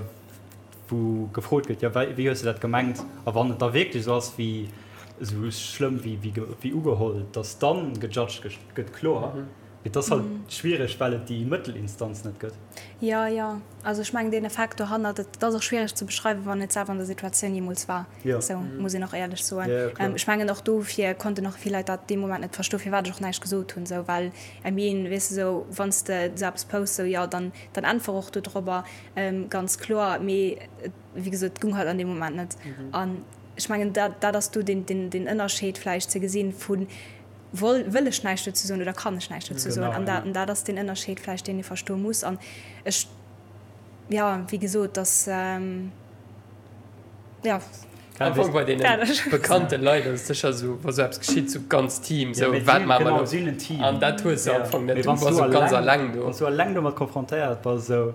wou gefrot gëtt, jo, wéi hues de dat gemengt? A wann et da wierklech esou ass wéi, esou schlëmm wéi, wéi ugeholl, datt dann gejudged gëtt, kloer. Mee et ass halt schwiereg, well et déi Mëttelinstanz net gëtt. Jo, jo. Also ech mengen deen Effekt dohannert, et ass och schwiereg ze beschreiwen, wann et selwer an der Situatioun jeemools war. Sou muss een och éierlech soen. Ech mengen och dofir konnten och vill Leit dat dee Moment net verstoen, firwat ech och näischt gesot hunn. Sou well, I mean, weess de, sou wann s de sou eppes posts, sou jo, dann dann äntwer och dodrobber, ganz kloer. Mee wéi gesot, et gung halt an deem Moment net. An ech mengen dat dat ass do deen deen deen Ënnerscheed vläicht ze gesinn vu woll wëll ech näischt dozou soen oder kann ech näischt dozou soen. An dat an dat ass deen Ënnerscheed vläicht, deen ee verstoe muss. An ech, jo, wéi gesot, dass. Ja. Am Fong bei deenen bekannte Leit ass et sécher esou, wa sou eppes geschitt, sou ganz Team, sou wat maache mer elo? An dat hues de am Fong net, du bass sou ganz alleng do. Wann s du alleng domat konfrontéiert bass esou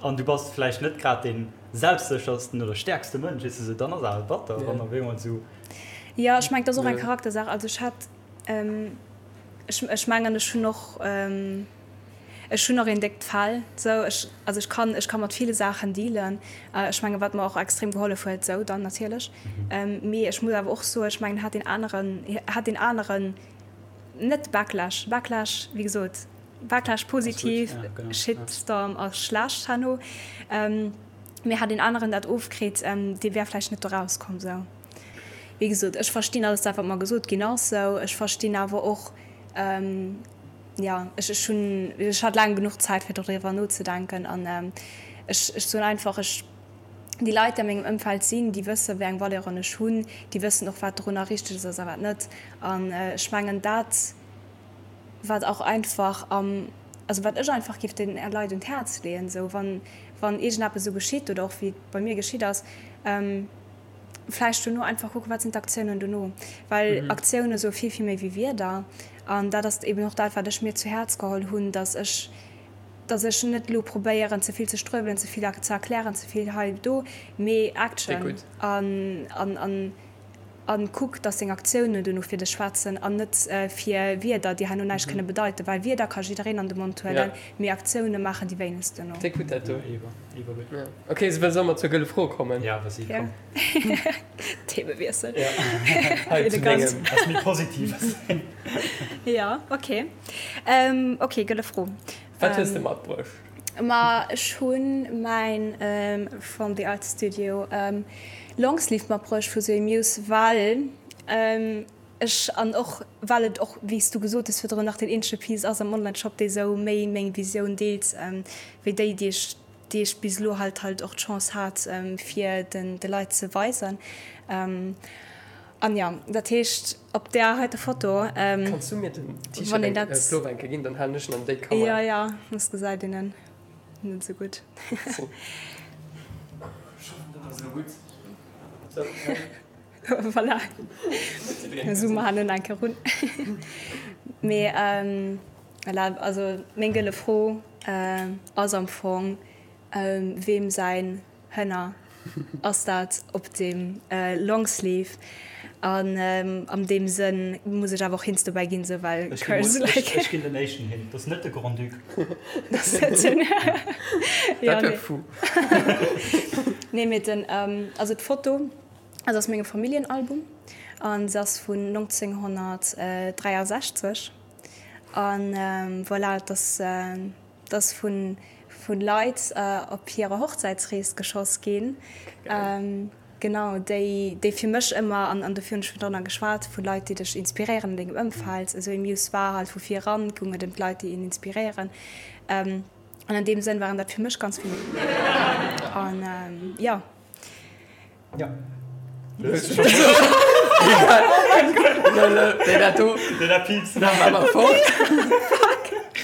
an du bass vläicht net grad dee selbstséchersten oder stäerkste Mënsch, weess de, sou dann ass awer batter, wann op eemol sou. Jo, ech mengen, et ass och eng Charaktersaach. Also ech hat, ech, ech mengen, ech hunn och. Ech hunn och een déckt Fell, sou ech, also ech kann, ech ka mat ville Saachen dealen. Ech mengen, wat mer och extrem gehollef huet, sou dann natierlech. Mee ech muss awer och soen, ech mengen, hat deen aneren, hat deen aneren net Backlash, Backlash, wéi gesot, Backlash positiv, Shitstorm ass schlecht herno, mee hat deen aneren dat ofkritt, dee wär vläicht net do rauskomm, sou. Wéi gesot, ech verstinn alles dat, wat mer gesot ginn ass, sou. Ech verstinn awer och, Jo, ech ech hunn, ech hat laang genuch Zäit fir doriwwer nozedenken an ech ech soen einfach, ech déi Leit déi a mengem Ëmfeld sinn, déi wësse wéi eng Valeuren ech hunn, déi wëssen och wat dorunner richteg ass a wat net. An ech mengen dat wat och einfach am, also wat ech einfach géif den Leit un d'Häerz leeën, esou wann wann iergendeppes esou geschitt oder och wéi et bei mir geschitt ass, Vläicht dono einfach kucken, wat sinn d'Aktiounen dono, well Aktioune soe vill, vill méi wéi Wierder. An dat ass eben och dat, wat ech mir zu Häerz geholl hunn, datt ech, datt ech net elo probéieren, ze vill ze struewelen, ze vill ze erklären, ze vill hei, do, mee Action an, an, an, an kuck, datt deng Aktiounen dono fir dech schwätzen an net fir Wierder, déi herno näischt kënne bedeiten, well Wierder ka jiddereen an de Mond huelen, mee Aktioune maachen déi wéinegst dono. Déck gutt dat do. Ok, soll soll mer zur gëlle Fro kommen? Ja, vas-y, komm. Themewiessel. Ja. Hei zu dengem. Ass méi Positives. Ja, ok. Ok, gëlle Fro. Wat hues de matbruecht? Ma ech hunn mäin From the Art Studio Longsleeve matbruecht vu Zoé Muse, well ech, an och well et och, wéi s du gesot hues virdrun, nach deen eenzege Piece ass am Onlineshop, dee sou méi meng Visioun deelt wéi déi, déi ech, déi ech bis elo halt halt och d'Chance hat fir den de Leit ze weisen. An jo, dat heescht op där heite Foto, Kanns du mir den T-Shirt wann een eng dat. Plover eng Kéier ginn, dann halen ech en an déi Kamera. Jo, jo, soss gesäit een en net esou gutt. Ech hoffen dat ass elo gutt. Sou, hei. Voilà, zoome mer hannen eng Kéier run. Mee voilà, also meng gëlle Fro ass am Fong, weem säin Hënner ass dat op dem Longsleeve? An am deem Sënn muss ech awer och Hints dobäi ginn, sou well cause like. Ech ginn den éischten Hint, dat ass net de Grand-Duc. Dat ass net den, jo Dat wär nee. fou. Nee, mee den, also d'Foto ass aus mengem Familljenalbum an se ass vun 1963 an voilà, et ass. Et ass vu Leit op hirer Hochzäitsrees geschoss ginn, genau, déi fir mech ëmmer, an dofir hunn ech virdrunner geschwat, vu Leit, déi dech inspiréieren an dengem Ëmfeld. Esou ee Muse war halt vu vir eran, goung et ëm d'Leit, déi een inspiréieren. An an deem Sënn waren dat fir mech ganz vill. An jo. Ja.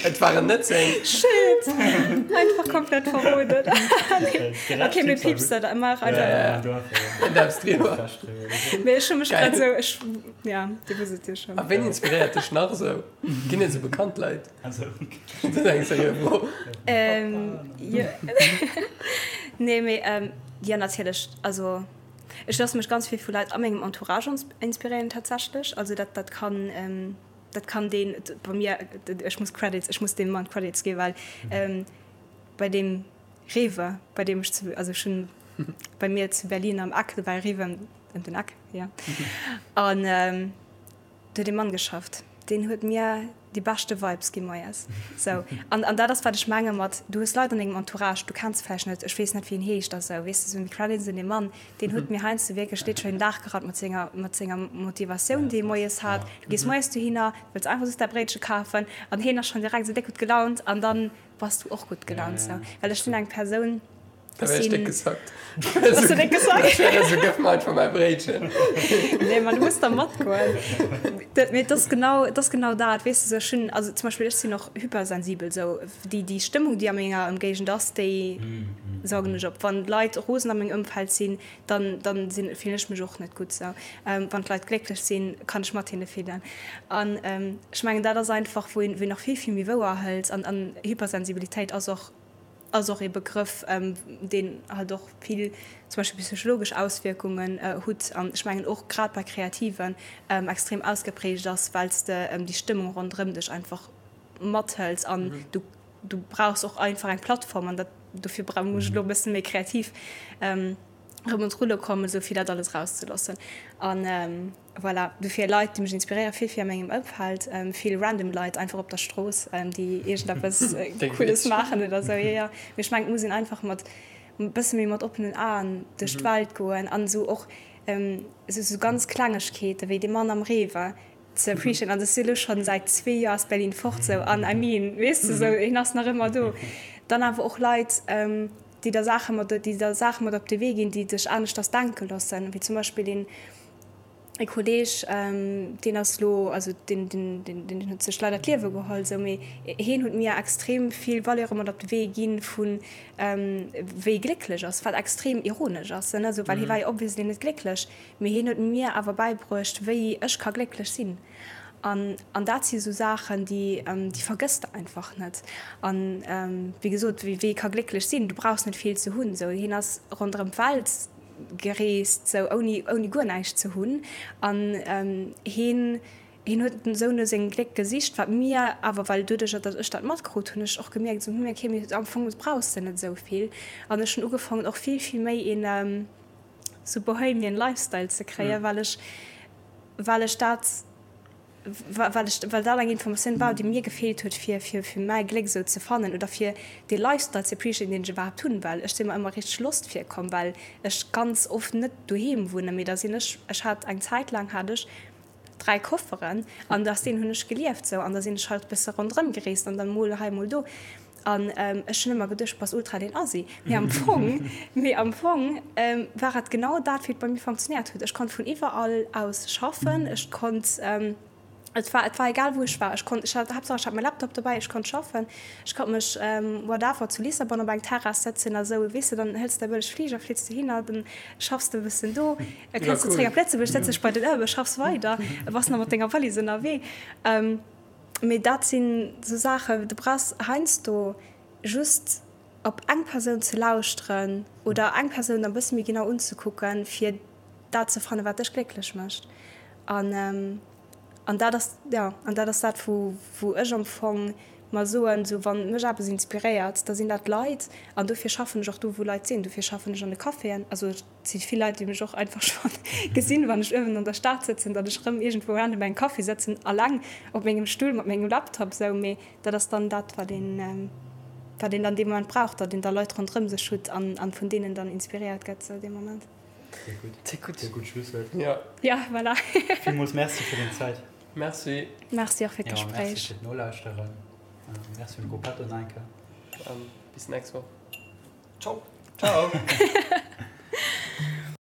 Et waren net seng. Shit! Einfach komplett verroden. Okay, mir piepsen dat ëmmer einfach. Darfst driwwer. Mee ech hu mech grad esou, ech, ja, Dir wësst et jo schonn. A ween inspiréiert dech nach esou? Ginn et esou bekannt Leit? Also. Dat ass eng seriö Fro. Jo. Nee, mee jo, natierlech. Also ech loosse mech ganz vill vu Leit a mengem Entourage inspiréieren tatsächlech. Also dat, dat kann, dat kann deen bei mir, ech muss Credits, ech muss deem Mann Credits ginn, well bei deem Rewe, bei deem ech zu, also ech hunn bei mir zu Berlin am Eck, do war e Rewe ëm den Eck, jo, an Do huet ee Mann geschafft, deen huet mir déi beschte Vibes gi moies. Sou. An, an dat ass, wat ech menge mat, du hues Leit an dengem Entourage, du kenns se vläicht net, ech weess net, wéi en heescht a sou, weess de, sou Credits un dee Mann, deen huet mir heiansdo wierklech literally den Dag gerappt mat senger, mat senger Motivatioun, déi e moies hat. Du gees moies dohinner, du wëlls einfach just däi Bréitche kafen an hien ass schonn direkt sou déck gutt gelaunt an dann bass du och gutt gelaunt, sou. Well ech sinn eng Persoun, Da wär ech déck gesackt. Bass du déck gesackt? Ech wär esou, gëff mer einfach mäi Bréitchen. Nee, ma du muss da matgoen. Dat, mee et ass genau, et ass genau dat, weess de, sou ech hunn, also zum Beispill ech sinn och hypersensibel, sou déi, déi Stëmmung, déi a menger Ëmgéigend ass, déi saugen ech op. Wann d'Leit rosen a mengem Ëmfeld sinn, dann, dann sinn, fillen ech mech och net gutt sou. Wann d'Leit glécklech sinn, kann ech mat hinne fillen. An ech mengen, dat ass einfach, wou een, wou een och vill, vill méi wouer hëlt. An, an Hypersensibilitéit ass och, ass och ee Begrëff, deen halt och vill zum Beispill psychologesch Auswierkungen hutt an ech mengen och grad bei Kreativen extrem ausgeprägt ass, well s de déi Stëmmung ronderëm dech einfach mathëls an du du brauchs och einfach eng Plattform an dat dofir bra muss ech elo e bësse méi kreativ erëm un d'Rulle kommen, esou fir dat alles erauszeloossen an. Voilà, dofir Leit déi mech inspiréieren, vill vill a mengem Ëmfeld, vill random Leit einfach op der Strooss, déi iergendeppes Cooles maachen oder sou. Jo, jo, mee ech mengen et muss een einfach mat e bësse méi mat oppenen Aen duerch d'Welt goen an esou och esou sou ganz Klengegkeete wéi dee Mann am Rewe ze appreciaten. An ech si elo schonn säit zwee Joer aus Berlin fort sou an I mean, weess de, sou hien ass nach ëmmer do. Dann awer och Leit, déi der Saache mat, déi der Saache mat op de Wee ginn, déi dech aneschters denke loossen, wéi zum Beispill een, E Kolleg, deen ass elo, also deen, deen, deen huet sech leider d'Liewe geholl, esou, mee heen huet mir extrem vill Valeure mat op de Wee ginn, vu wéi glécklech ass, wat extrem ironesch ass, ne, esou, well hie war jo obviously net glécklech, mee hien huet mir awer bäibruecht, wéi ech ka glécklech sinn. An, an dat si sou Saachen, déi, déi vergëss de einfach net. An, wéi gesot, wéi ee ka glécklech sinn, du brauchs net vill ze hunn, esou, hien ass ronderëm d'Welt gereest, sou ouni, ouni guer näischt ze hunn. An heen, heen huet esou no sengem Gléck gesicht, wat mir awer, well doduercher, datt ech dat matkrut, hunn ech och gemierkt, esou, hm, okay, mee am Fong brauchs de net esou vill. An ech hunn ugefaangen och vill, vill méi een sou bohemian Lifestyle ze kréien, well ech, well ech dat. well ech, well dat eng Informatioun war, déi mir gefeelt huet, fir, fir, fir mäi Gléck esou ze fannen oder fir dee Lifestyle ze appreciaten, deen ech iwwerhaapt hunn, well ech si mer ëmmer richteg lost virkomm, well ech ganz oft net doheem wunnen, mee da sinn ech, ech hat eng Zäit laang hat ech 3 Kofferen an aus deenen hunn ech gelieft sou an da sinn ech halt bësse ronderëm gereest an dann mol hei mol do an ech hunn ëmmer geduecht, bass ultra deen Assi, mee am Fong, mee am Fong war et genau dat wéi et bei mir funktionéiert huet. Ech konnt vun iwwerall aus schaffen, ech konnt Et war, et war egal wou ech war, ech konnt, ech hat, Haaptsaach ech hat mäi Laptop dobäi, ech konnt schaffen, ech konnt mech whatever zu Lissabon op eng Terrass sëtzen a sou, weess de, dann hëls de e bëlleg Fliger, flitt de hinner, dann schaffs de e bëssen do, da kënns de zréck op Lëtzebuerg, sëtz dech bei den Ëmmer, schaffs weider, bass nach mat denger Wallis ënnerwee. Mee dat sinn sou Saachen, du brauchs heiansdo just op eng Persoun ze lauschteren oder eng Persoun e bësse méi genau unzekucken, fir dat ze fannen, wat dech glécklech mécht. An An dat ass, jo, an dat ass dat, wou, wou ech am Fong mer soen, esou wann mech eppes inspiréiert, da sinn dat d'Leit. An dofir schaffen ech och do, wou Leit sinn. Dofir schaffen ech an de Caféen. Also et si vill Leit, déi mech och einfach scho gesinn, wann ech uewen an der Stad sëtzen, datt ech erëm iergendwou random engem Café sëtzen, alleng op mengem Stull mat mengem Laptop esou. Mee dat ass dann dat, wat een, wat een dann dee Moment brauch, datt een da Leit ronderëm sech hutt an, an vun deenen dann inspiréiert gëtt esou dee Moment. Sehr gutt. Sehr gutt. Sehr gutt Schlusswuert. Ja. Ja, voilà. Villmools Merci fir deng Zäit. Merci. Merci och fir d'Gespréich. Ja, merci fir d'Nolauschteren. Merci un Gruppetto nach eng Kéier. Bis nächst Woch. Ciao. Ciao.